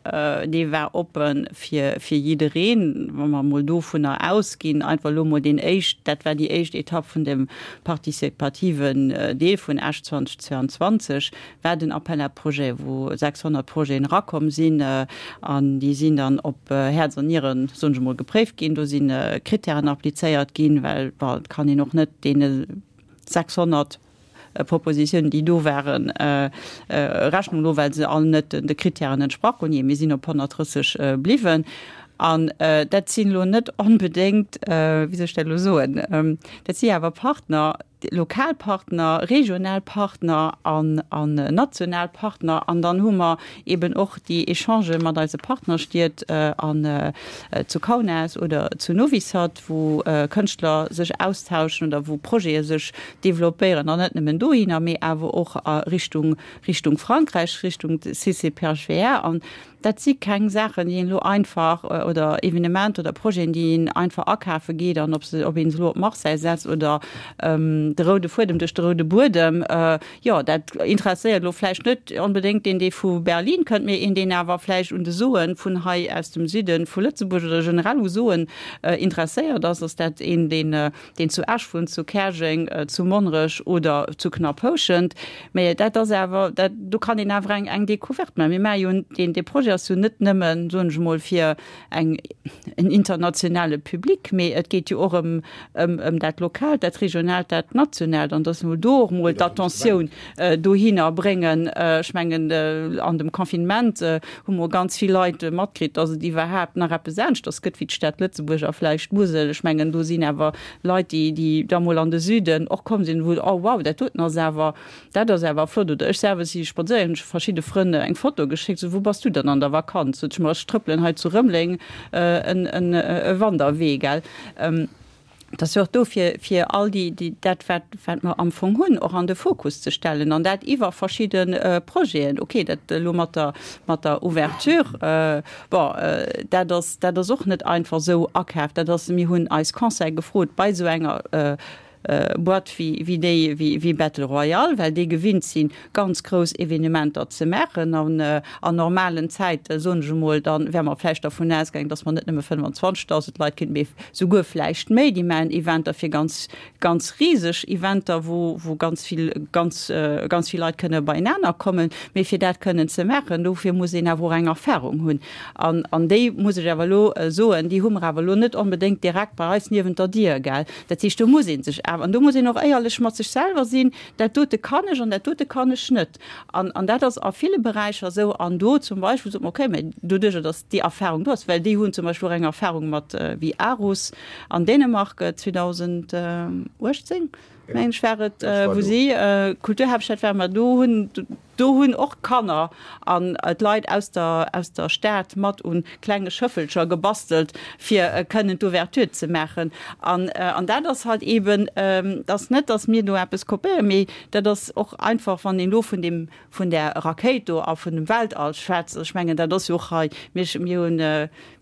dee war oppe fir jiddereen, wa mer emol dovunner ausginn, einfach elo emol deen éischt, dat war déi éischt Etapp vun dem participativen Deel vun Esch 2022, war den Appel à projets, wou 600 Projeten erakomm sinn an déi sinn dann op Häerz an Nieren, soen ech emol, gepréift ginn. Do si Krittären applizéiert ginn, well, bon, et kann een och net deene 600. Propositiounen, déi do waren, Rechnung elo, well se all net de Kritären entsprach hunn. Jee, mir sinn op 130 bliwwen. An dat sinn elo net onbedéngt, wéi soll ech dat elo soen, dat si awer Partner, lokal Partner, regional Partner an national Partner. An dann hu mer eben och déi Echangë mat eise Partnerstied an zu Kaunas oder zu Novi Sad, wou Kënschtler sech austauschen oder wou Projete sech developpéieren, an net nëmmen dohinner, mee awer och a Richtung Richtung Frankräich, Richtung CCPHVR. An Dat si keng Saachen, déi een elo einfach, oder Evenementer oder Projeten, déi een einfach akafe geet an ob se, ob een se elo op Marseille setzt oder de roude Fuedem duerch de roude Buedem. Jo, dat interesséiert elo vläicht net onbedéngt deen, dee vu Berlin kënnt, mee een, deen awer vläicht un de Soe vun hei aus dem Süde vu Lëtzebuerg oder generell u Soen interesséiert ass, ass dat een, deen, deen zu Esch wunnt, zu Käerjeng, zu Monnerech oder zu Knapphouschent. Mä dat ass awer, dat, do kann een awer eng, eng Découverte maachen. Mir maache jo deen, dee Projet ass jo net nëmmen, soen ech emol, fir eng, en internationale Public, mee et geet jo och ëm, ëm, ëm dat Lokaalt, dat Regionaalt, dat Nationaalt. An dass emol do och emol d'Attentioun dohinner bréngen. Ech mengen, an dem Confinement hu mer ganz vill Leit matkritt, dass et iwwerhaapt nach eppes aneschters gëtt wéi d'Stad Lëtzebuerg a vläicht d'Musel. Ech mengen, do sinn awer Leit, déi, déi da mol an de Süden och komm sinn, wou, oh wow, dat doten ass awer, dat ass awer flott. Oder ech selwer si spadséieren, hunn ech verschidde Frënn eng Foto geschéckt, sou, wou bass du dann an der Vakanz? Sot ech, ma ech trëppelen hei zu Rëmeleng en, en, e Wanderwee, gell. Et ass jo och do fir, fir all déi, déi, dat wat, wat mer am Fong hunn, och an de Fokus ze stellen an dat iwwer verschidde Projeten. Okay, dat elo mat der, mat der Ouverture, Bon, dat ass, dat ass och net einfach esou akaaft. Dat ass, mir hunn eis Conseil gefrot bei esou enger Boîte wéi, wéi déi, wéi, wéi Battle Royale, well déi gewinnt sinn, ganz grouss Evenementer ze maachen. An an normalen Zäite, soen ech emol, da wäre mer vläicht dervun ausgaangen, datt mer net nëmme 25.000 Leit kritt, mee souguer vläicht méi. Déi maachen Eventer fir ganz ganz riseg Eventer, wou, wou ganz vill, ganz, ganz vill Leit kënne beienaner kommen. Mee fir dat kënnen ze maachen, dofir muss een awer och eng Erfahrung hunn. An, an déi, muss ech awer elo soen, déi hu mer awer elo net onbedéngt direkt bei eis niewent der Dier, gell. Dat heescht, do muss ee sech awer, an do muss een och éierlech mat sech selwer sinn, Dat dote kann ech an dat dote kann ech net. An, an dat ass a ville Beräicher esou. An do zum Beispill sot mer, okay, mä doduerjer, datt déi Erfahrung do ass, well déi hunn zum Beispill och eng Erfahrung mat wéi Aarhus an Dänemark 2018, mengen ech war et, wou si Kulturhaaptstad waren, mä do hunn, do hunn och d'Kanner an d'Leit aus der, aus der Stad mat un klenge Schëffelcher gebastelt, fir kënnen d'Ouverture ze maachen. An, an dat ass halt eeben, et ass net, datt mir do eppes kopéieren, mee dat ass och einfach, wann een elo vun deem, vun där Rakéit do a vun dem Weltall schwätzt, ech mengen, dat ass jo och hei, mir, mir hunn,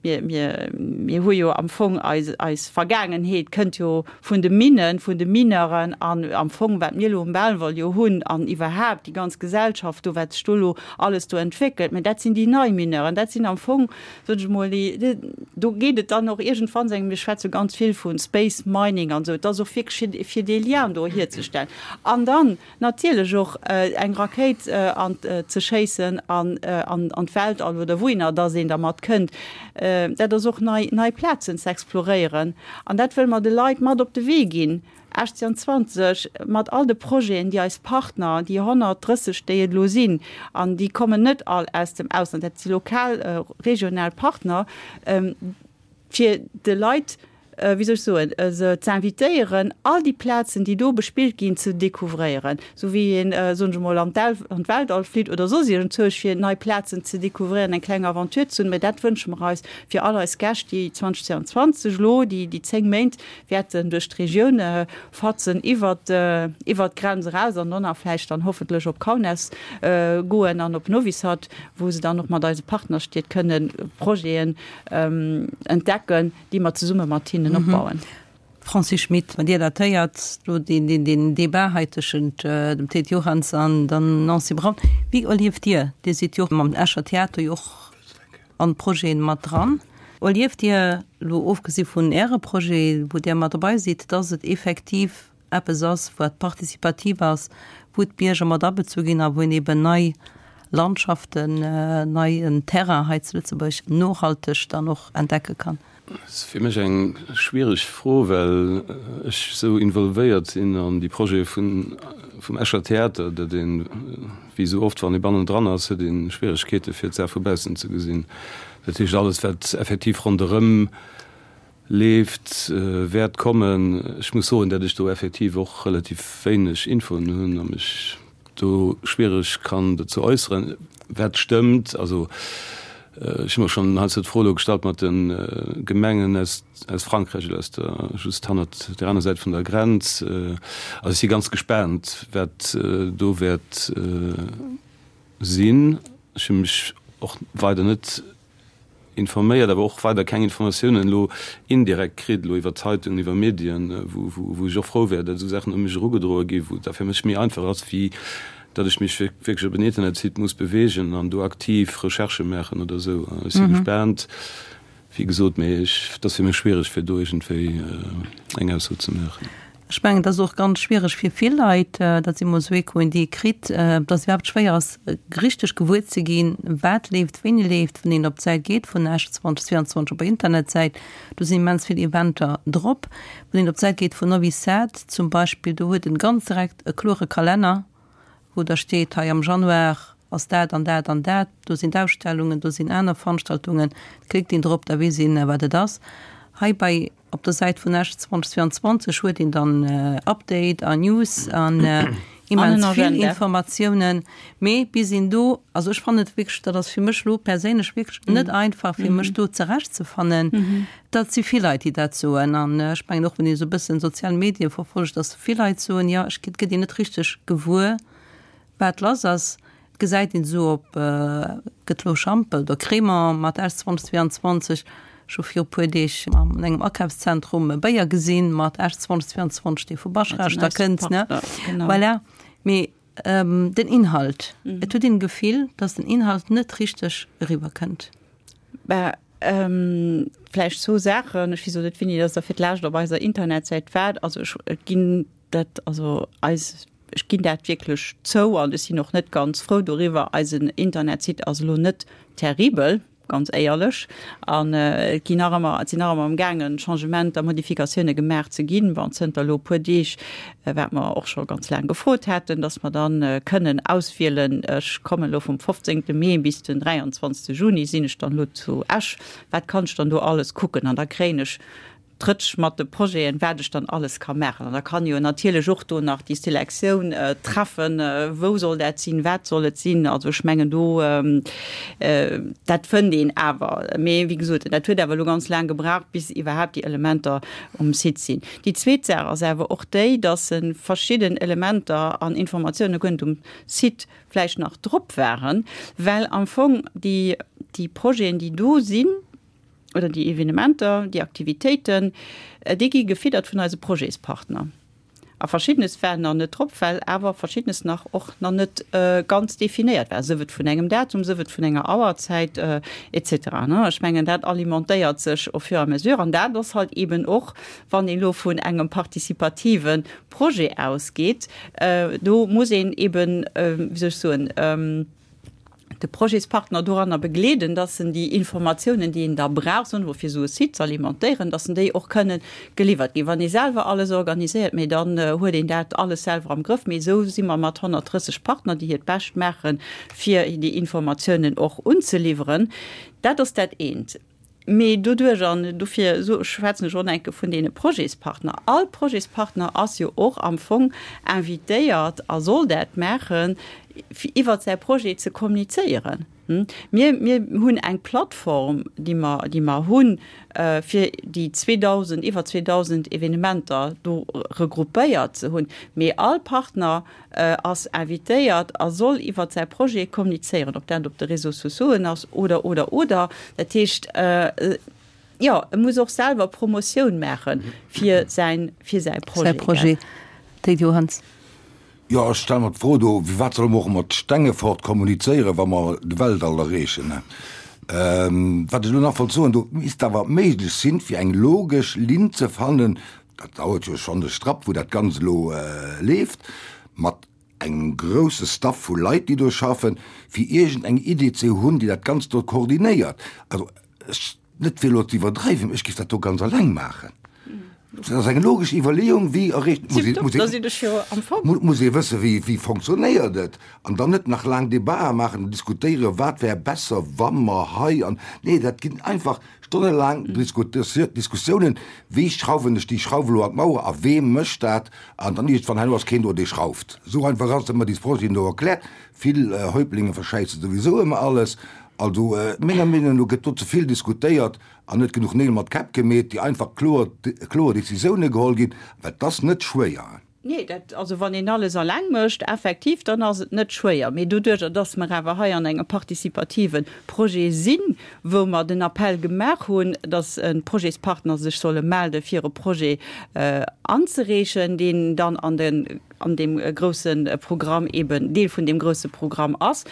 mir, mir, mir hu jo am Fong eis, eis Vergaangenheet kënnt jo vun de Minnen, vun de Mineuren an am Fong, wat mir elo um Belval jo hunn an iwwerhaapt déi ganz Gesellschaft do, wat sech do elo alles do entwéckelt, mä dat sinn déi nei Mineuren, dat sinn am Fong, sot ech emol, déi, do geet et dann och iergendwann, seng, mir schwätze ganz vill vu Space Mining an esou, et ass och wierklech fir, fir dee Lien do hierzestellen an dann natierlech och eng Rakéit an ze schéissen an an d'Weltall oder wouhinner dass een dermat kënnt, dat ass och nei, nei Plazen ze exploréieren an dat wëlle mer de Leit mat op de Wee ginn. 1820, mat all de Projeten, déi eis Partner, déi 130, déi et elo sinn, an déi kommen net all aus dem Ausland, dat si lokal, regional Partner, fir de Leit, wéi soll ech soen, se z'invitéieren, all déi Plazen, déi do bespillt ginn, ze découvréieren, esou wéi een, soen ech emol, an d'Weltall flitt oder soss iergendzwousch, fir nei Plazen ze découvréieren, eng kleng Aventure ze hunn. Mä dat wënsche mer eis fir all eis Gäscht, déi 2022 elo déi 10 Méint wäerten duerch d'Regioun fatzen, iwwert iwwert d'Grenz eraus an dann nach vläicht dann hoffentlech op Kaunas goen an op Novi Sad, wou se dann och mat eise Partnerstied kënne Projeten entdecken, déi mer zesumme mat hinnen opbauen. Francis Schmit, Wann Dir dat héiert, do deen deen Debat hei tëschent dem Théid Johanns an der Nancy Braun, wéi erlieft Dir, Dir sidd jo mam Escher Theater jo och an d'Projeten mat dran. Erlieft Dir, elo ofgesi vun Äre Projet, wou Dir mat dobei sidd, dass et effektiv eppes ass, wat participativ ass, wou d'Bierger mat abezu ginn a wou een eben nei Landschaften, neien Terrain hei zu Lëtzebuerg nohalteg dann och entdecke kann? Dat ass fir mech eng schwiereg Fro, well ech esou involvéiert sinn an déi Projete vun. vum Escher Theater, datt een, wéi esou oft, wann ee bannendran ass, huet ee Schwieregkeete fir d'Saach vu baussen ze gesinn. Dat heescht, alles wat effektiv ronderëm leeft, wäert kommen. Ech muss soen, datt ech do effektiv och relativ wéineg Infoen hunn a mech do schwiereg kann dozou äusseren. Wat stëmmt, also ech hu mer schonn heiansdo d'Fro elo gestallt mat de Gemengen aus aus Frankräich oder aus der just hannert der aner Säit vun der Grenz. Also ech si ganz gespaant, wat do wäert sinn. Ech hu mech och weider net informéiert, awer och weider keng Informatiounen elo indirekt kritt, elo iwwer Zeitungen, iwwer Medien, wou ech och frou wär, datt esou Saachen u mech erugedroe gi, wou et da fir mech méi einfach ass, wéi datt ech mech wierklech op en Internetsite muss beweegen an do aktiv Recherchë maachen oder esou. Ech si gespaant. Wéi gesot, mee ech, et ass fir mech schwiereg, fir do iergendwéi eng Ausso ze maachen. Ech mengen, et ass och ganz schwiereg fir vill Leit, dat si mol esou Echoen, déi ee kritt, dass et iwwerhaapt schwéier ass, richteg gewuer ze ginn, wat leeft, wéini leeft. Wann een op d'Säit geet vun Esch 2022 op der Internetsäit, do sinn immens vill Eventer drop. Wann een op d'Säit geet vun Novi Sad zum Beispill, do huet en ganz direkt e klore Kalenner, wou da steet, hei am Januar ass dat an dat an dat, do sinn d'Ausstellungen, do sinn aner Veranstaltungen, da klickt een drop, da weess een, wat et ass. Hei bei op der Säit vun Esch 2022 huet een dann Update a News an immens vill Informatiounen, mee bis een do, also ech fannen et wierklech, dat ass fir mech elo perséinlech wierklech net einfach fir mech do zerechtzefannen. Dat si vill Leit, déi dat soen an ech mengen och, wann ee sou e bëssen sozial Medie verfollegt, datt vill Leit soen, jo, ech gëtt een net richteg gewuer, wat lass ass. Et gesäit een esou op, gëtt elo Schampel oder Crémant mat S 2022, ech hu viru puer Deeg an engem Akafszentrum e Béier gesinn mat S 2022, dee vu Baschrecht da kënnt, ne? Voilà. Mee den Inhalt, et huet een d'Gefill, datt den Inhalt net richteg eriwwer kënnt. Bah, vläicht zwou Saachen. Ech weess elo net, wéini dass Der fir d'lescht op eiser Internetsäit waart. Also ech, et ginn dat, also eis, ech ginn dat wierklech zou an ech sinn och net ganz frou doriwwer, eisen Internetsite ass elo net terribel, ganz éierlech. An et ginn nach ëmmer, et sinn nach ëmmer amgaangen, Changementer, Modifikatioune gemaach ze ginn. Bon, zënter elo e puer Deeg, wat mer och scho ganz laang gefrot haten, dass mer dann kënnen auswielen, ech kommen elo vum 15. Mee bis den 23. Juni sinn ech dann elo zu Esch, wat kann ech dann do alles kucken? An da kréien ech d'Rëtsch mat de Projeten, wat ech dann alles ka maachen. An da kann jo natierlech och do nach déi Selektioun treffen, wou soll dat sinn, wat soll et sinn. Also ech mengen do, dat fënnt een awer. Mee wéi gesot, dat huet awer elo ganz laang gebraucht, bis iwwerhaapt déi Elementer um Site sinn. Déi zweet Saach ass awer och déi, dass verschidden Elementer an Informatioune guer net um Site vläicht nach drop waren, well am Fong déi, déi Projeten, déi do sinn, oder déi Evenementer, déi Aktivitéiten, déi gi gefiddert vun eise Projetspartner. A Verschiddenes war nach net drop, well awer Verschiddenes nach och nach net ganz definéiert war, sief et vun engem Datum, sief et vun enger Auerzäit et cetera. Ech mengen, dat alimentéiert sech au fur et à mesure. An dat ass halt eeben och, wann een elo vun engem participative Projet ausgeet, do muss een eeben, wéi soll ech soen, de Projetspartner doranner begleeden, dass en déi Informatiounen, déi en da brauch, soen ech mol, fir esou e Site ze alimentéieren, dass en déi och kënnen geliwwert ginn. Wann ee selwer alles organiséiert, mee dann huet een dat alles selwer am Grëff. Mee esou si mer mat 130 Partner, déi hiert Bescht maachen, fir déi Informatiounen och unzeliwweren. Dat ass dat eent. Mee doduerch, an dofir schwätzen ech och enke vun deene Projetspartner, all Projetspartner ass jo och am Fong invitéiert a soll dat maachen, fir iwwert säi Projet ze kommunizéieren. Mir, mir hunn eng Plattform, déi mer, déi mer hunn, fir déi 2.000, iwwer 2.000 Evenementer do regroupéiert ze hunn. Mee all Partner ass invitéiert a soll iwwert säi Projet kommunizéieren, ob dat op de Réseaux sociauxen ass oder, oder, oder. Dat heescht, jo, e muss och selwer Promotioun maache fir säin, fir säi Projet. Säi Projet. Téid Johanns. Jo, ech stelle mer d'Fro do, Firwat solle mer och mat Stengefort kommunizéieren, wa mer de Weltall erreechen? Wat ech elo nach wollt soen, do misst awer méiglech sinn, fir eng logesch Linn ze fannen, dat dauert jo schonn e Strapp, wou dat Ganzt elo leeft, mat engem grousse Staff vu Leit, déi do schaffen, fir iergend eng Idee ze hunn, déi dat Ganzt do koordinéiert. Also ech, net fir elo ze iwwerdreiwen, ech géif dat do ganz alleng maachen. Dat ass eng logesch Iwwerleeung, wéi erreecht, muss ee, muss ee, muss ee wëssen, wéi, wéi fonctionnéiert et, an dann net nach laang Debatë maachen an diskutéieren, wat wär besser, wa mer hei an, nee, dat ginn einfach stonnelaang Diskussiounen, wéi schrauwen ech déi Schrauf elo an d'Mauer a wee mécht dat, an dann iergendwann herno ass keen do, dee schrauft. Esou einfach ass et, ëmmer déi Projeten do erkläert. Vill Häuptlinge verschäissen souwisou ëmmer alles. Also menger Meenung no gëtt do ze vill diskutéiert An net genuch Neel mat Käpp gemeet, déi einfach kloer, kloer Décisioune geholl ginn, well et ass net schwéier. Nee, dat, also wann een alles alleng mécht, effektiv, dann ass et net schwéier. Mee doduerjer, dass mer awer hei an engem participative Projet sinn, wou mer den Appell gemaach hunn, dass d'Projetspartner sech solle melde fir e Projet anzereechen, deen dann an de an deem grousse Programm eben Deel vun deem grousse Programm ass,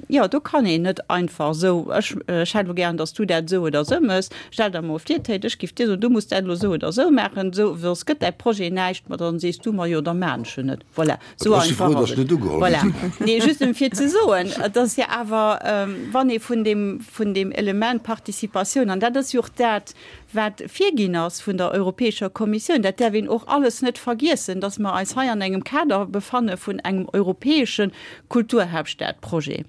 jo, do kann een net einfach esou, ech, ech hätt elo gären, datt s du dat esou oder esou méchs, stell der emol vir, Théid, ech giff dir soen, du muss dat elo esou oder esou maachen, esou, soss gëtt däi Projet näischt, ma dann sees du mer, jo, da maan ech en net. Voilà, esou Ech si einfach frou, ass datt ech et. net ugeholl Voilà. sinn. Nee, just em fir ze soen, et ass jo awer, wann ee vun deem, vun deem Element Participatioun, an dat ass jo och dat, wat virginn ass vun der Europäescher Kommissioun, dat däerf een och alles net vergiessen, dass mer eis hei an engem Kader befanne vun engem europäesche Kulturhauptstadprojet.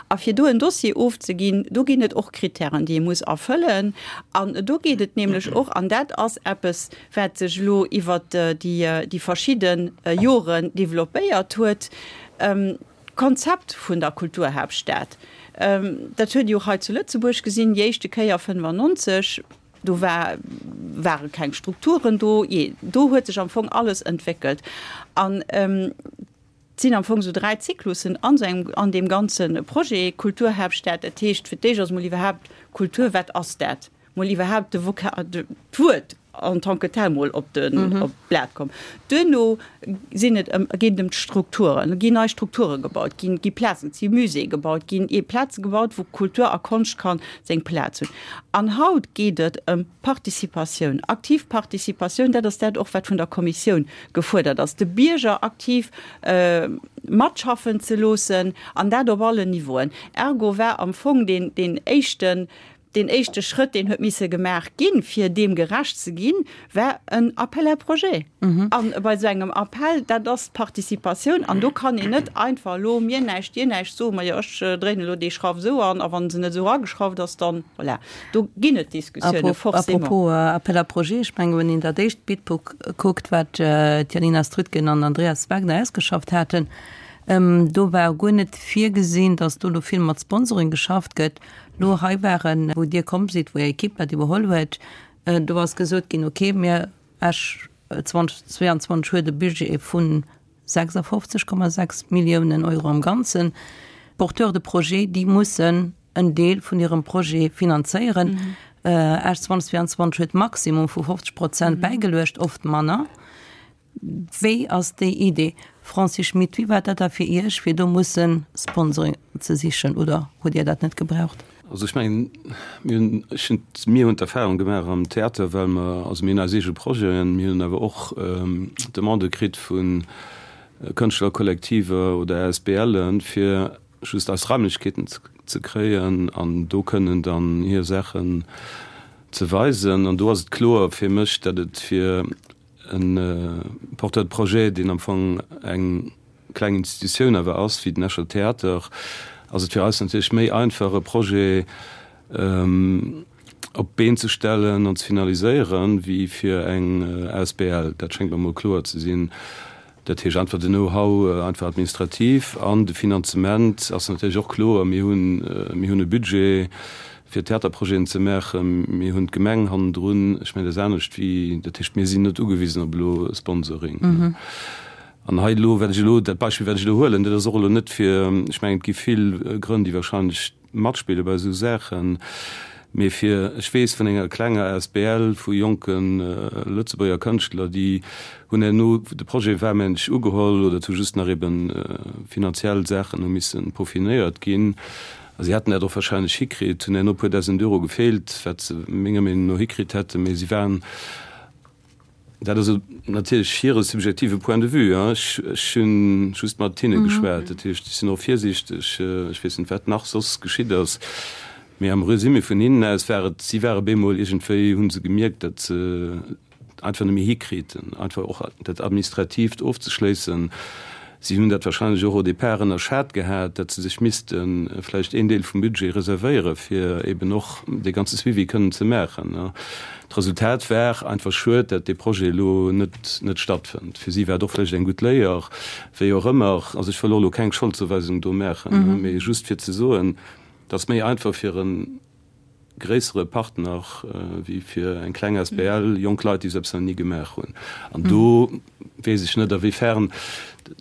A fir do en Dossier ofzeginn, do ginn et och Kritären, déi ee muss erfëllen. An do geet et nämlech och, an dat ass eppes, wat sech elo iwwert déi verschidde Joren développéiert huet, D'Konzept vun der Kulturhaaptstad, dat huet Dir och hei zu Lëtzebuerg gesinn, déi éischte Kéier 95, do war, ware keng Strukturen do, jee, do huet sech am Fong alles entwéckelt. An et sinn am Fong esou 3 Zyklussen an esou engem, an deem ganze Projet Kulturhaaptstad. Dat heescht, fir d'éischt ass emol iwwerhaapt Kultur, wat ass dat? Mol iwwerhaapt de Voka, d'Wuert en tant que tel mol op den, op d'Blat komm. Duerno sinn et ëm, geet et ëm d'Strukturen, ginn nei Strukture gebaut, ginn, gi Plazen, et si Muséeë gebaut ginn, ee Plaze gebaut, wou Kultur a Konscht ka seng Plaz hunn. An haut geet et ëm Participatioun, aktiv Participatioun, dat ass dat och, wat vun der Kommissioun gefuerdert ass, de Bierger aktiv matschaffen ze loossen, an dat op allen Niveauen. Ergo war am Fong deen, deen éischten, Deen éischte Schrëtt, deen huet misse gemaach ginn, fir deem gerecht ze ginn, war en Appel à projets. A bei esou engem Appel, dat ass d'Participatioun an do kann een net einfach elo mir näischt, dir näischt soen, majo ech dréinen elo déi Schrauf esou an a wa se net esou erageschrauft ass, dann voilà. Do ginn et Diskussiounen, forcément. Apropos Appel à projets, ech mengen, wann een dat éischt Bidbook kuckt, wat d'Janina Strütgen an Andreas Wagner ausgeschafft haten, do war guer net virgesinn, datt do elo vill mat Sponsoring geschafft gëtt. Lo hei waren, wou Dir komm sidd, wou Är Ekipp dat iwwerholl huet, do ass gesot ginn, okay, mir, Esch 2022 huet e Budget vu 56,6 Milliounen Euro am Ganzen. D'Porteurs de projet, déi mussen en Deel vun hirem Projet finanzéieren. Esch 2022 huet maximum vu 50 Prozent bäigeluecht, oft manner. Wéi ass déi Idee? Francis Schmit, Wéi war dat da fir Iech, fir do musse Sponsoring ze sichen, oder hutt Dir dat net gebraucht? Also ech mengen, mir hunn, ech hunn, mir hunn d'Erfahrung gemaach am Theater, well mer, also mir hunn eis eege Projeten, mir hunn awer och Demandë kritt vu Kënschtlerkollektiver oder ASBLen, fir just eis Raimlechkeeten ze kréien an do kënnen dann hir Saachen ze weisen. An do ass et kloer fir mech, datt et fir E Porteur de projet, deen am Fong eng kleng Institutioun awer ass, wéi den Escher Theater, ass et fir eis natierlech méi einfach, e Projet op d'Been ze stellen an ze finaliséieren, wéi fir eng asbl. Dat schéngt mer emol kloer ze sinn. Dat heescht einfach den Know-how, einfach administrativ an de Finanzement ass natierlech och kloer. Mir hunn, mir hunn e Budget fir Theaterprojeten ze maachen. Mir hunn d'Gemeng hannendrun. Ech mengen, dat ass anescht wéi, dat heescht, mir sinn net ugewisen op elo Sponsoring. An hei elo, wat ech elo, dat Beispill, wat ech elo huelen, dat ass och elo net fir, ech mengen, et gi vill Grënn, déi wahrscheinlech matspille bei esou Saachen, mee fir, ech weess vun enger klenger asbl vu jonke Lëtzebuerger Kënschtler, déi hunn herno, de Projet war mengen ech ugeholl oder et hu just nach ebe finanziell Saachen hu missen peaufinéiert ginn a si hätten dat och wahrscheinlech hikritt, hunn herno e puer dausend Euro gefeelt, wat se menger Meenung no hikritt hätten, mee si waren, Dat ass natierlech hire subjektive Point de vue. Ech hu just mat hinne geschwat. Dat heescht, ech sinn och virsiichteg. Ech weess net, wat nach soss geschitt ass. Mee am Resumé vun hinnen aus war et, si ware bemol iergendwéi, hu se gemierkt, datt se et einfach net méi hikriiten, einfach och dat Administratiivt ofzeschléissen. Si hunn dat wahrscheinlech och au départ ënnerschat gehat, datt se sech misste vläicht een Deel vum Budget reservéiere fir eben och dee ganze Suivi kënnen ze maachen. D'Resultat war einfach schued, datt dee Projet elo net net stattfënnt. Fir si war et och vläicht eng gutt Léier, wéi och ëmmer. Also ech wëll och elo keng Scholdzouweisung do maachen, mee just fir ze soen, Et ass méi einfach fir e gréissere Partner wéi fir eng kleng asbl, jonk Leit, déi esou eppes nach ni gemaach hunn. An do weess ech net, a wéi fern,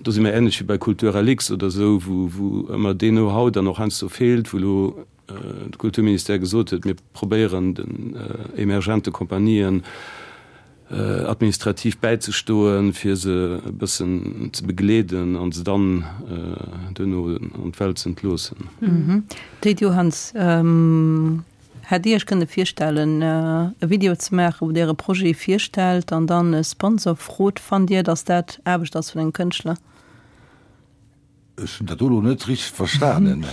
do si mer änlech wéi bei Kulturlux oder esou, wou wou ëmmer deen Know-how dann och heiansdo feelt, wou elo de Kulturministère gesot huet, mir probéieren den emergente Kompanien, administrativ bäizestoen, fir se e bëssen ze begleeden an se dann duerno an d'Welt ze entloossen. Théid Johanns, Hätt Dir Iech kënne virstellen, e Video ze maachen, wou Dir Äre Projet virstellt an dann e Sponsor frot? Fannt Dir, datt dat Aarbecht ass vun engem Kënschtler? Ech hunn dat do elo net richteg verstanen.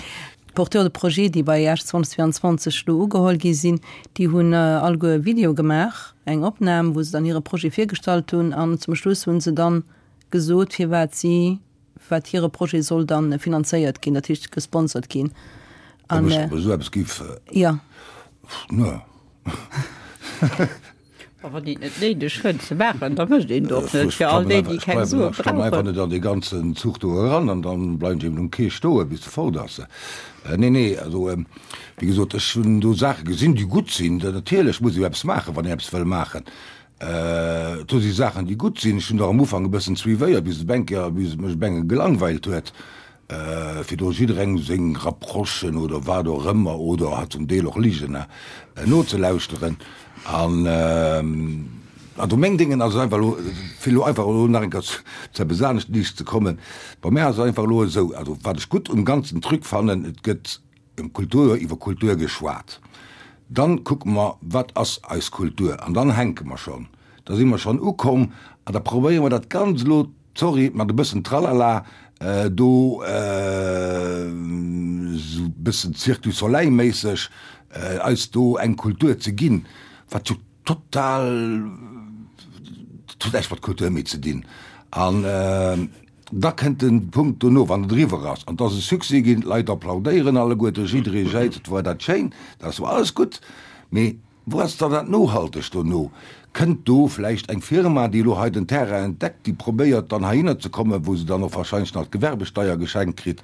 D'Porteurs de projet, déi bei Esch 2022 elo ugeholl gi sinn, déi hunn alleguer e Video gemaach, eng Opnam, wou se dann hire Projet virgestallt hunn an zum Schluss hu se dann gesot, firwat si, wat hire Projet soll dann finanzéiert ginn, dat heescht gesponsert ginn. Ob ech esou eppes giff? Jo. Ne. A wann een et net néideg fënnt ze maachen, da mécht een et och net. Fir all déi, déi keng Sue brauchen. Ech klammen einfach net an dee ganzen Zuch do eran an dann bleiwen ech eben um Quai stoen, bis e fort ass. Nee, nee, also wéi gesot, ech hunn do Saache gesinn, déi gutt sinn. Natierlech muss ee jo eppes maachen, wann een eppes wëll maachen. Do si Saachen, déi gutt sinn. Ech hunn der am Ufank e bëssen suivéiert, bis et eng Kéier, bis et mech e benge gelangweilt huet. Fir do jidderengem seng Rapprochen oder wat och ëmmer, oder zum Deel och Ligen, nozelauschteren. An also meng Déngen ass et einfach elo, fir elo einfach elo nach eng Kéier zu eppes anescht liicht ze kommen, bei mär ass et einfach elo esou, also wat ech gutt um ganzen Truc fannen, et gëtt ëm Kultur, iwwer Kultur geschwat, dann kucke mer, wat ass eis Kultur, an dann hänke mer schonn, da si mer schonn ukomm an da probéiere mer dat Ganzt elo, Sorry, mat e bëssen Tralala do, esou e bëssen Cirque du Soleil méisseg, eis do eng Kultur ze ginn, wat jo total, dat huet näischt mat Kultur méi ze dinn. An da kënnt de Punkt dono, wann et eriwwer ass an et ass e Succès ginn, d'Leit applaudéieren alleguerte, jidderee jäizt, et war dat schéin, dat ass jo alles gutt, mee Wou ass dann dat Nohaltegt dono? Kënnt do vläicht eng Firma, déi elo hei den Terrain entdeckt, déi probéiert dann heihinner ze kommen, wou se dann och wahrscheinlech nach d'Gewerbesteier geschenkt kritt,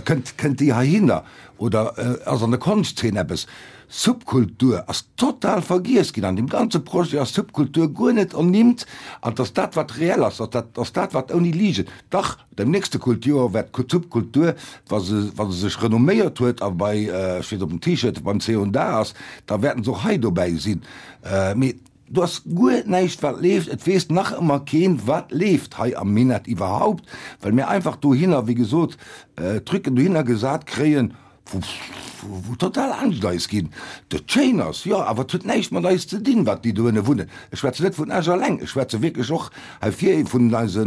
kënnt, kënnt déi heihinner? Oder ass an der Konschtzeen eppes? Subkultur ass total vergiess ginn. An deem ganze Projet ass Subkultur guer net ernimmt. An et ass dat, wat reell ass, dat ass dat, wat ouni Ligen, dach, Dem nächste Kulturjoer wäert d'Subkultur, wa se wa se sech renomméiert huet a bei, ech weess op dem T-Shirt, beim C und A ass, da wäerten se och hei dobäi sinn. Mee do ass guer näischt wat leeft. Et weess nach ëmmer keen, wat leeft hei am Minett iwwerhaupt, well mir einfach dohinner, wéi gesot, Trucken dohinner gesat kréien, wou total Angscht eis ginn. Dat schéin ass, jo, awer et huet näischt mat eis ze dinn, wat déi dohinne wunnen. Ech schwätzen net vun Esch alleng, ech schwätze wierklech och hei vir vun eise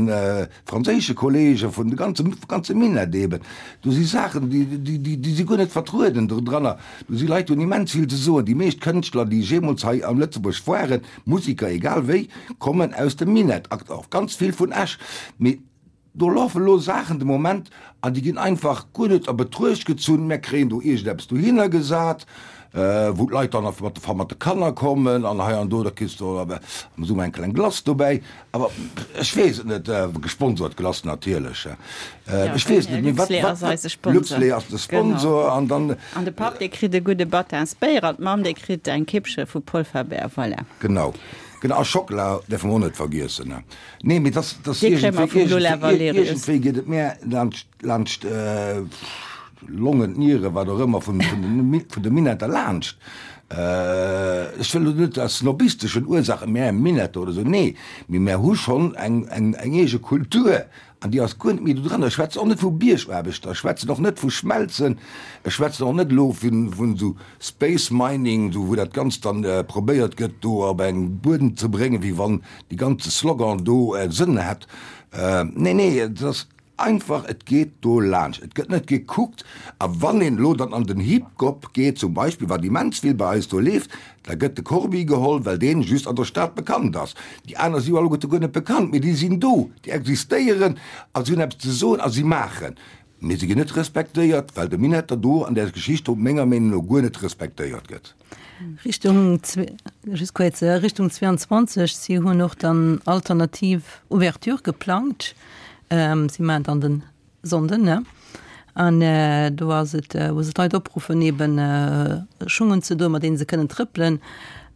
franséische Kollegen, vun de ganze, ganze Minett eben. Do si Saachen, déi, déi, déi, déi si guer net vertrueden dodranner. Do si Leit, déi hunn immens vill ze soen. Déi meescht Kënschtler, déi jeemools hei am Lëtzebuerg waren, Musiker, egal wéi, kommen aus dem Minett, och ganz vill vun Esch. Mee Do lafen elo Saachen de Moment an déi ginn einfach guer net a Betruecht gezunn. Mär kréien do iergendeppes dohinner gesat, wou d'Leit dann mat de mat de Kanner kommen an hei an do, da kriss de am Summer eng kleng Glace dobäi. Awer ech weess et net, gesponsert Glace natierlech, ech weess et net, mee wat, Luxlait ass eise Sponsor. Luxlait ass de Sponsor an dann. An de Papp, dee kritt e gudde Battinsbéier an d'Mamm, déi kritt eng Kippche vu Polferbär. Voilà. Genau, genau. A Schockela däerfe mer och net vergiessen. Nee, mee dass, dass Dee kréie mer vum Lola Valerius. Iergendwéi geet et mär laanscht, laanscht d'Longen, d'Nieren, wat och ëmmer, vun, vun den, vun de Minetter laanscht. Ech wëll elo net aus snobisteschen Ursaachen, mär Minetter oder esou, nee, mee mär hu schonn eng, eng, eng eege Kultur an déi ass guer net méi do dran. Ech schwätzen och net vu Biergaarbechter, ech schwätzen och net vu Schmelzen, ech schwätzen och net elo vun, vun esou Space Mining, esou wou dat Ganzt dann probéiert gëtt do op eng Buedem ze bréngen, wéi wann dee ganze Slogan do Sënn hätt. Nee, nee, et ass. einfach, et geet do laanscht, et gëtt net gekuckt. A wann een elo dann an den Hip-Gop geet zum Beispill, wat immens vill bei eis do leeft, da gëtt de Corbi geholl, well deen just an der Stad bekannt ass. Déi aner si jo alleguerte guer net bekannt, mee déi sinn do, déi existéieren a si hunn eppes ze soen a si maachen. Mee se ginn net respektéiert, well de Minetter do an där Geschicht do menger Meenung no guer net respektéiert gëtt. Richtung, just kuerz, Richtung 22, si hunn och dann alternativ Ouverture geplangt. Si maachen dann den Sonnden, ne? An do ass et, wou se d'Leit opruffen, eben Schung unzedoen, mat deene se kënnen trëppelen,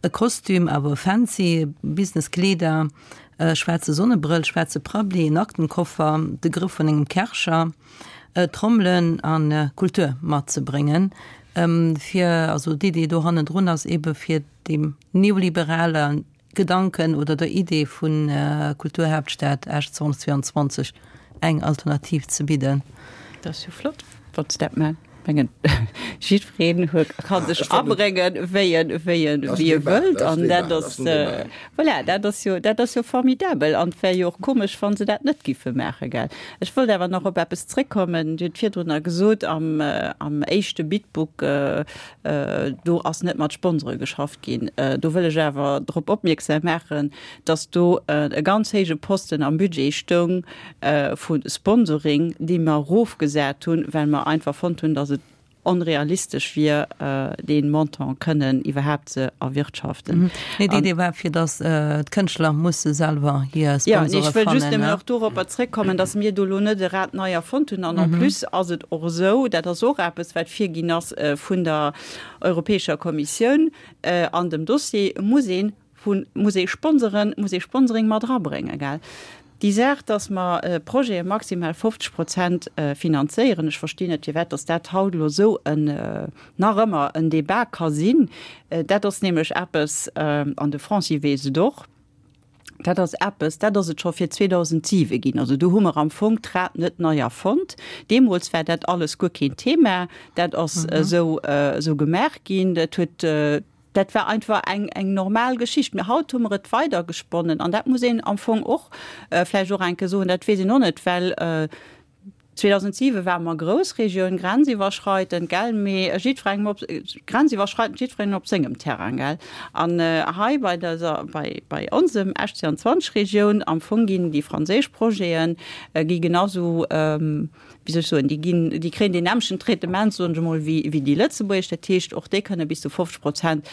e Kostüm, awer e fancy, Business-Kleeder, E schwaarze Sonnebrëll, schwaarze Prabbli, en Aktenkoffer, de Grëff vun engem Kärcher, Trommelen a Kultur matzebréngen, fir, also d'Idee do hannendrun ass ebe fir deem neoliberale Gedanken oder der Idee vu Kulturhaaptstad Esch 2022 eng Alternativ ze bidden. Dat ass jo flott, wann s dat mengs. Mengen jiddwereen huet ka sech abréngen, wéi en, wéi en, wéi e wëllt. An dat ass, voilà, dat ass jo, dat ass jo formidabel. An et wär jo och komesch, wa se dat net giffe maachen, gell. Ech wollt awer nach op eppes zréckkommen. Dir hutt virdrunner gesot, am, am éischte Bidbook, do ass net mat Sponsore geschafft ginn. Do wëll ech awer drop opmierksam maachen, dass do e ganz héije Posten am Budget stoung vu Sponsoring, dee mer erofgesat hunn, well mer einfach fonnt hunn, dass et onrealistesch wier, dee Montant kënnen iwwerhaapt ze erwirtschaften. Nee, déi Idee war, fir dass d'Kënschtler musse selwer hir Sponsore fannen. Jo, ech wëll just nëmmen och doropper zréckkommen, dass mir do elo net e Rad nei erfonnt hunn. An en plus ass et och esou, dat ass och eppes, wat virginn ass vun der Europäescher Kommissioun an dem Dossier, muss ee Vu muss ee Sponsoren, muss ee Sponsoring mat erabréngen, gell? Déi Saach, dass mer Projete maximal 50 Prozent finanzéieren, ech verstinn net, firwat dass dat haut elo esou en, nach ëmmer en Débat ka sinn. Dat ass nämlech eppes, an de Francis weess et och, dat ass eppes, dat ass et scho fir 2007 ginn. Also do hu mer am Fong d'Rad net nei erfonnt. Deemools war dat alles guer keen Thema. Dat ass esou, esou gemaach ginn. Dat huet. Dat war einfach eng, eng normal Geschicht. Mee haut hu mer et weidergesponnen an dat muss een am Fong och vläicht och eng Kéier soen, dat weess een och net, well 2007 ware mer Groussregioun, grenziwwerschreitend, gell, mee jiddwerengem op, grenziwwerschreitend jiddwerengem op sengem Terrain, gell. An hei bei dëser, bei, bei onsem Esch 22 Regioun am Fong ginn déi franséisch Projete gi genau sou, wéi soll ech soen, déi ginn, déi kréien deen nämmlechten Traitement, soen ech emol, wéi, wéi déi lëtzebuergesch. Dat heescht, och déi kënne bis zu 50 Prozent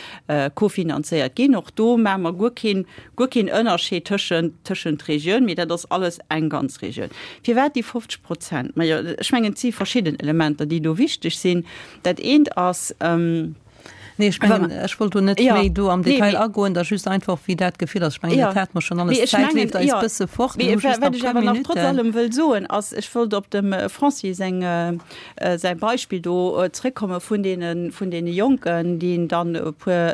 kofinanzéiert ginn. Och do maache mer guer keen, guer keen Ënnerscheed tëschent, tëschent Regioun, mee dat ass alles eng ganz Regioun. Firwat déi 50 Prozent? Majo, ech mengen, et si verschidden Elementer, déi do wichteg sinn. Dat eent ass, Nee, ech mengen, ech wollt do net méi do am Detail agoen, da just einfach, wéi dat Gefill ass. Ech mengen, dat hate mer schonn alles. D'Zäit leeft eis bësse fort. Mir hu just nach e puer Minutten. Wat ech awer nach trotz allem wëll soen, ass, ech wollt op dem Francis seng, säi Beispill do zréckkomme vun deene, vun deene Jonken, déi dann e puer,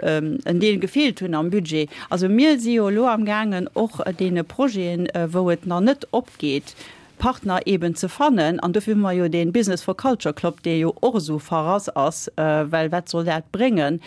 en Deel gefeelt hunn am Budget. Also mir si jo elo amgaangen, och deene Projeten, wou et nach net opgeet, Partner eben ze fannen. An dofir hu mer jo dee Business for Culture Club, dee jo och esou verrass ass, well wat soll dat bréngen?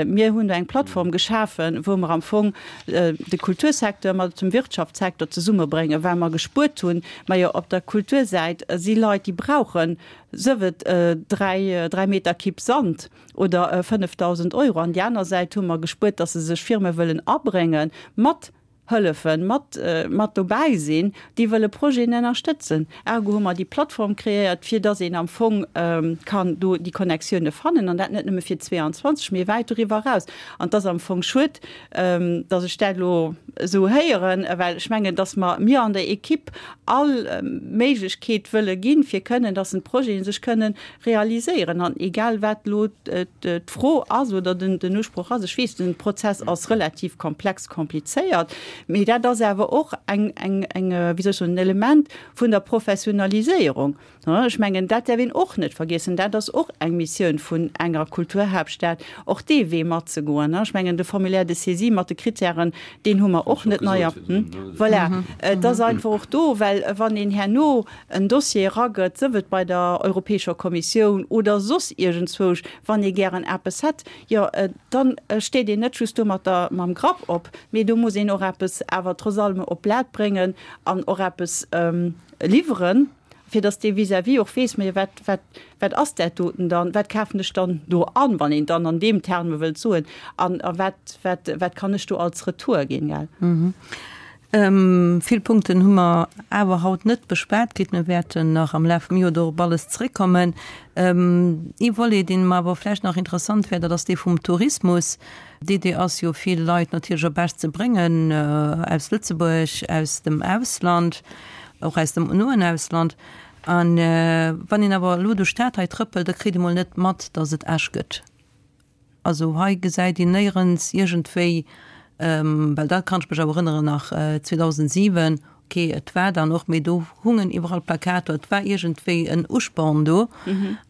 Mir hunn do eng Plattform geschafen, wou mer am Fong de Kultursecteur mat dem Wirtschaftssecteur zesummebréngen, well mer gespuert hunn, majo op der Kultursäit si Leit, déi brauchen, sëf et 3 Meter Kipp Sand oder 5.000 Euro. An déi aner Säit hu mer gespuert, datt se sech Firme wëllen abrénge mat hëllefen, mat, mat dobäi sinn, déi wëlle Projeten ënnerstëtzen. Ergo hu mer déi Plattform kreéiert, fir dass een am Fong kann do déi Connectioune fannen, an dat net nëmme fir 22, mee wäit doriwwer eraus. An et ass am Fong schued, dass ech dat elo esou héieren, well ech mengen, dass mer, mir an der Equipe all Méiglechkeet wëlle ginn, fir kënnen, dass en d'Projete sech kënnen realiséieren. An egal wat elo d'Fro ass oder den Usproch ass, ech weess, den Prozess ass relativ komplex, komplizéiert, mee dat ass awer och eng, eng, eng, wéi soll ech soen, en Element vun der Professionaliséierung. Ech mengen, dat däerf een och net vergiessen, dat ass och eng Missioun vun enger Kulturhaaptstad, och dee Wee matzegoen. Ech mengen, de Formulaire de saisie mat de Kritären, deen hu mer och net nei. Voilà, et ass einfach och do, well wann een herno en Dossier eragëtt, sëf et bei der Europäescher Kommissioun oder soss iergendzwousch, wann ee gären eppes hätt, jo, dann steet een net just do mat der, mam Grapp op, mee do muss een och eppes. eppes awer trotz allem op d'Blat bréngen an och eppes liwweren, fir datt dee Vis-à-vis och weess, Mä wat, wat, wat ass dat doten dann, wat kafen ech dann do an, wann een dann an deem Terme wëllt soen, an a wat, wat, wat kann ech do als Retour ginn, gell? Vill Punkten hu mer awer haut net beschwat kritt. Mir wäerten nach am Laf vum Joer do op alles zréckkommen. Ee Volet, deen mer awer vläicht nach interessant wär, dat ass dee vum Tourismus. D'Idee ass jo, vill Leit natierlech op Esch ze bréngen, aus Lëtzebuerg, aus dem Ausland, och aus dem noen Ausland. A wann een awer elo duerch d'Stad hei trëppelt, da kritt ee mol net mat, datt et Esch gëtt. Also hei gesäit een néierens iergendwéi, well dat kann ech mech awer erënneren nach 2007, ok et war dann och, mee do hungen iwwerall Plakater, et war iergendwéi en Usporn do.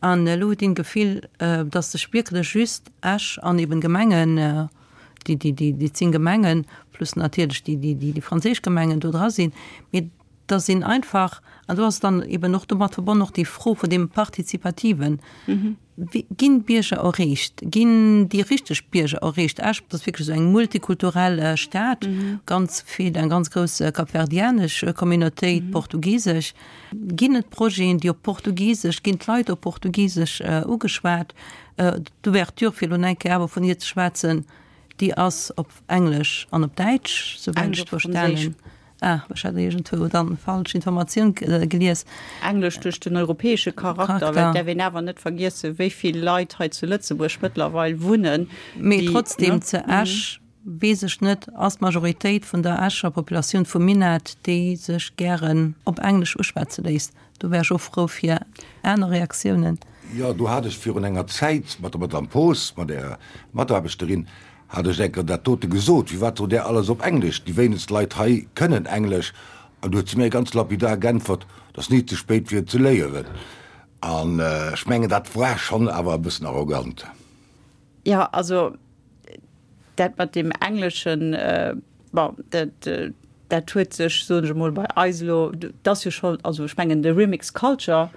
An elo huet een d'Gefill, datt sech wierklech just Esch an eben Gemengen, déi, déi, déi, déi 10 Gemengen plus natierlech déi, déi, déi franséisch Gemengen do dra sinn, mee dass een einfach, an do ass dann eben och domat verbonnen och déi Fro vun deem Partizipativen, Ginn d'Bierger erreecht? Ginn déi richteg Bierger erreecht? Esch ass wierklech esou eng multikulturell Stad, ganz vill, eng ganz grouss kapverdianesch Communautéit, portugisesch. Ginn et Projeten, déi op Portugisesch, ginn d'Leit op Portugisesch ugeschwat? D'Ouverture, fir elo eng Kéier awer vun hir ze schwätzen, déi ass op Englesch an op Däitsch, souwäit ech et verstanen. Ah, ech hat iergendwou dann falsch Informatioun gelies. Englesch duerch den europäesche Charakter, well et däerf een awer net vergiessen, wéi vill Leit hei zu Lëtzebuerg mëttlerweil wunnen, Mee trotzdem, zu Esch, weess ech net, ass d'Majoritéit vun der Escher Populatioun vum Minett, déi sech gären op Englesch uschwätze léisst. Do wär ech och frou fir aner Reaktiounen. Jo, do hat ech virun enger Zäit mat der Madame Poos, mat Ärer Mataarbechterin, Hat ech enker dat dote gesot, firwat sot där alles op Englesch, déi wéinegst Leit hei kënnen Englesch, an du huet se mir ganz lapidar geäntwert, et ass ni ze spéit fir et ze léieren. An ech mengen dat war schonn awer e bëssen arrogant. Jo, also dat mat deem Engleschen, bon, dat Dat huet sech, soen ech emol, bei eis elo, dat ass jo scho, also ech mengen de Remix Culture,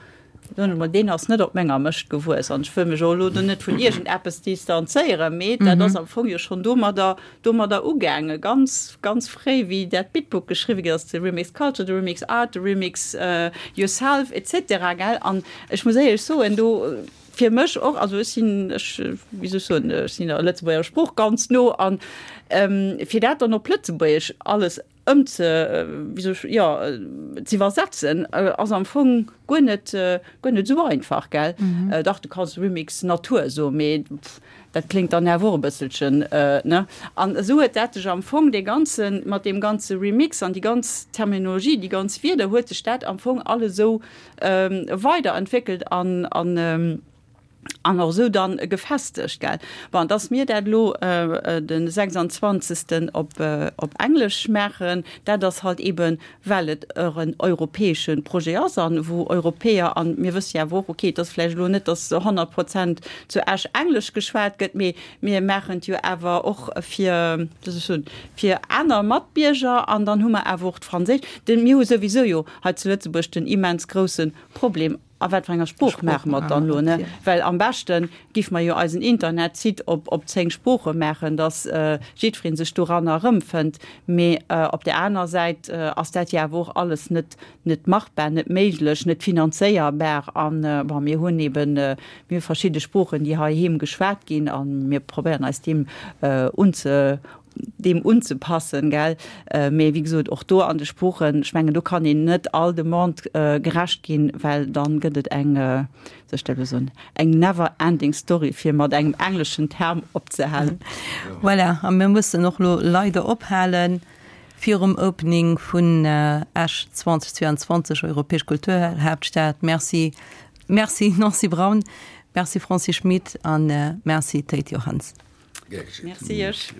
soen ech emol, deen ass net op menger Mëscht gewuess an ech wëll mech och elo do net vun iergendeppes distanzéieren, mee dat ass am Fong jo schonn domadder, domadder ugaangen, ganz, ganz fréi, wéi dat Bitbook geschriwwe ginn ass, de Remix Culture, de Remix Art, de Remix Yourself et cetera, gell. An ech muss éierlech soen, do, fir mech och, also ech sinn, ech, wéi soll ech soen, ech sinn der Lëtzebuerger Sprooch ganz no an fir dat dann op Lëtzebuergesch alles ëmze, wéi soll ech, jo, ze iwwersetzen, ass am Fong guer net, guer net esou einfach, gell. Dach, du kanns Remix Natur soen, mee dat kléngt dann awer och e bësselchen, ne. An esou huet dat sech am Fong, dee ganzen, mat deem ganze Remix an déi ganz Terminologie, déi ganz Wierder, huet sech dat am Fong alles esou weiderentwéckelt an an an och esou dann gefestegt, gell. Bon, dass mir dat elo de 26. op op Englesch maachen, dat ass halt eeben, well et och en europäesche Projet ass an wou Europäer, an mir wësse jo awer och, okay, et ass vläicht elo net, dass 100 Prozent zu Esch Englesch geschwat gëtt, mee mir maachen et jo awer och fir, wéi soll ech soen, fir aner Matbierger an dann hu mer awer och d'Franséisch. Mir hu souwisou jo hei zu Lëtzebuerg den immens grousse Problem, a wat fir enger Sprooch maache mer et dann elo, ne? Well am beschte giff mer jo eisen Internetsite op op 10 Sprooche maachen, datt jiddweree sech doranner erëmfënnt. Mee op där aner Säit ass dat jo awer och alles net net machbar, net méiglech, net finanzéierbar. An, bon, mir hunn eben, mir hu verschidde Sproochen, déi heiheem geschwat ginn, a mir probéieren eis deem unze deem unzepassen, gell. Mee wéi gesot, och do an de Sproochen, ech mengen, do kann een net all Demande gerecht ginn, well dann gëtt et eng, wéi soll ech dat elo soen, eng never ending story, fir mat engem engleschen Term opzehalen. Voilà, a mir mussen och elo leider ophalen virum Opening vun Esch 2022, Europäesch Kulturhaaptstad. Merci, merci Nancy Braun, merci Francis Schmit a merci Théid Johanns. Merci iech.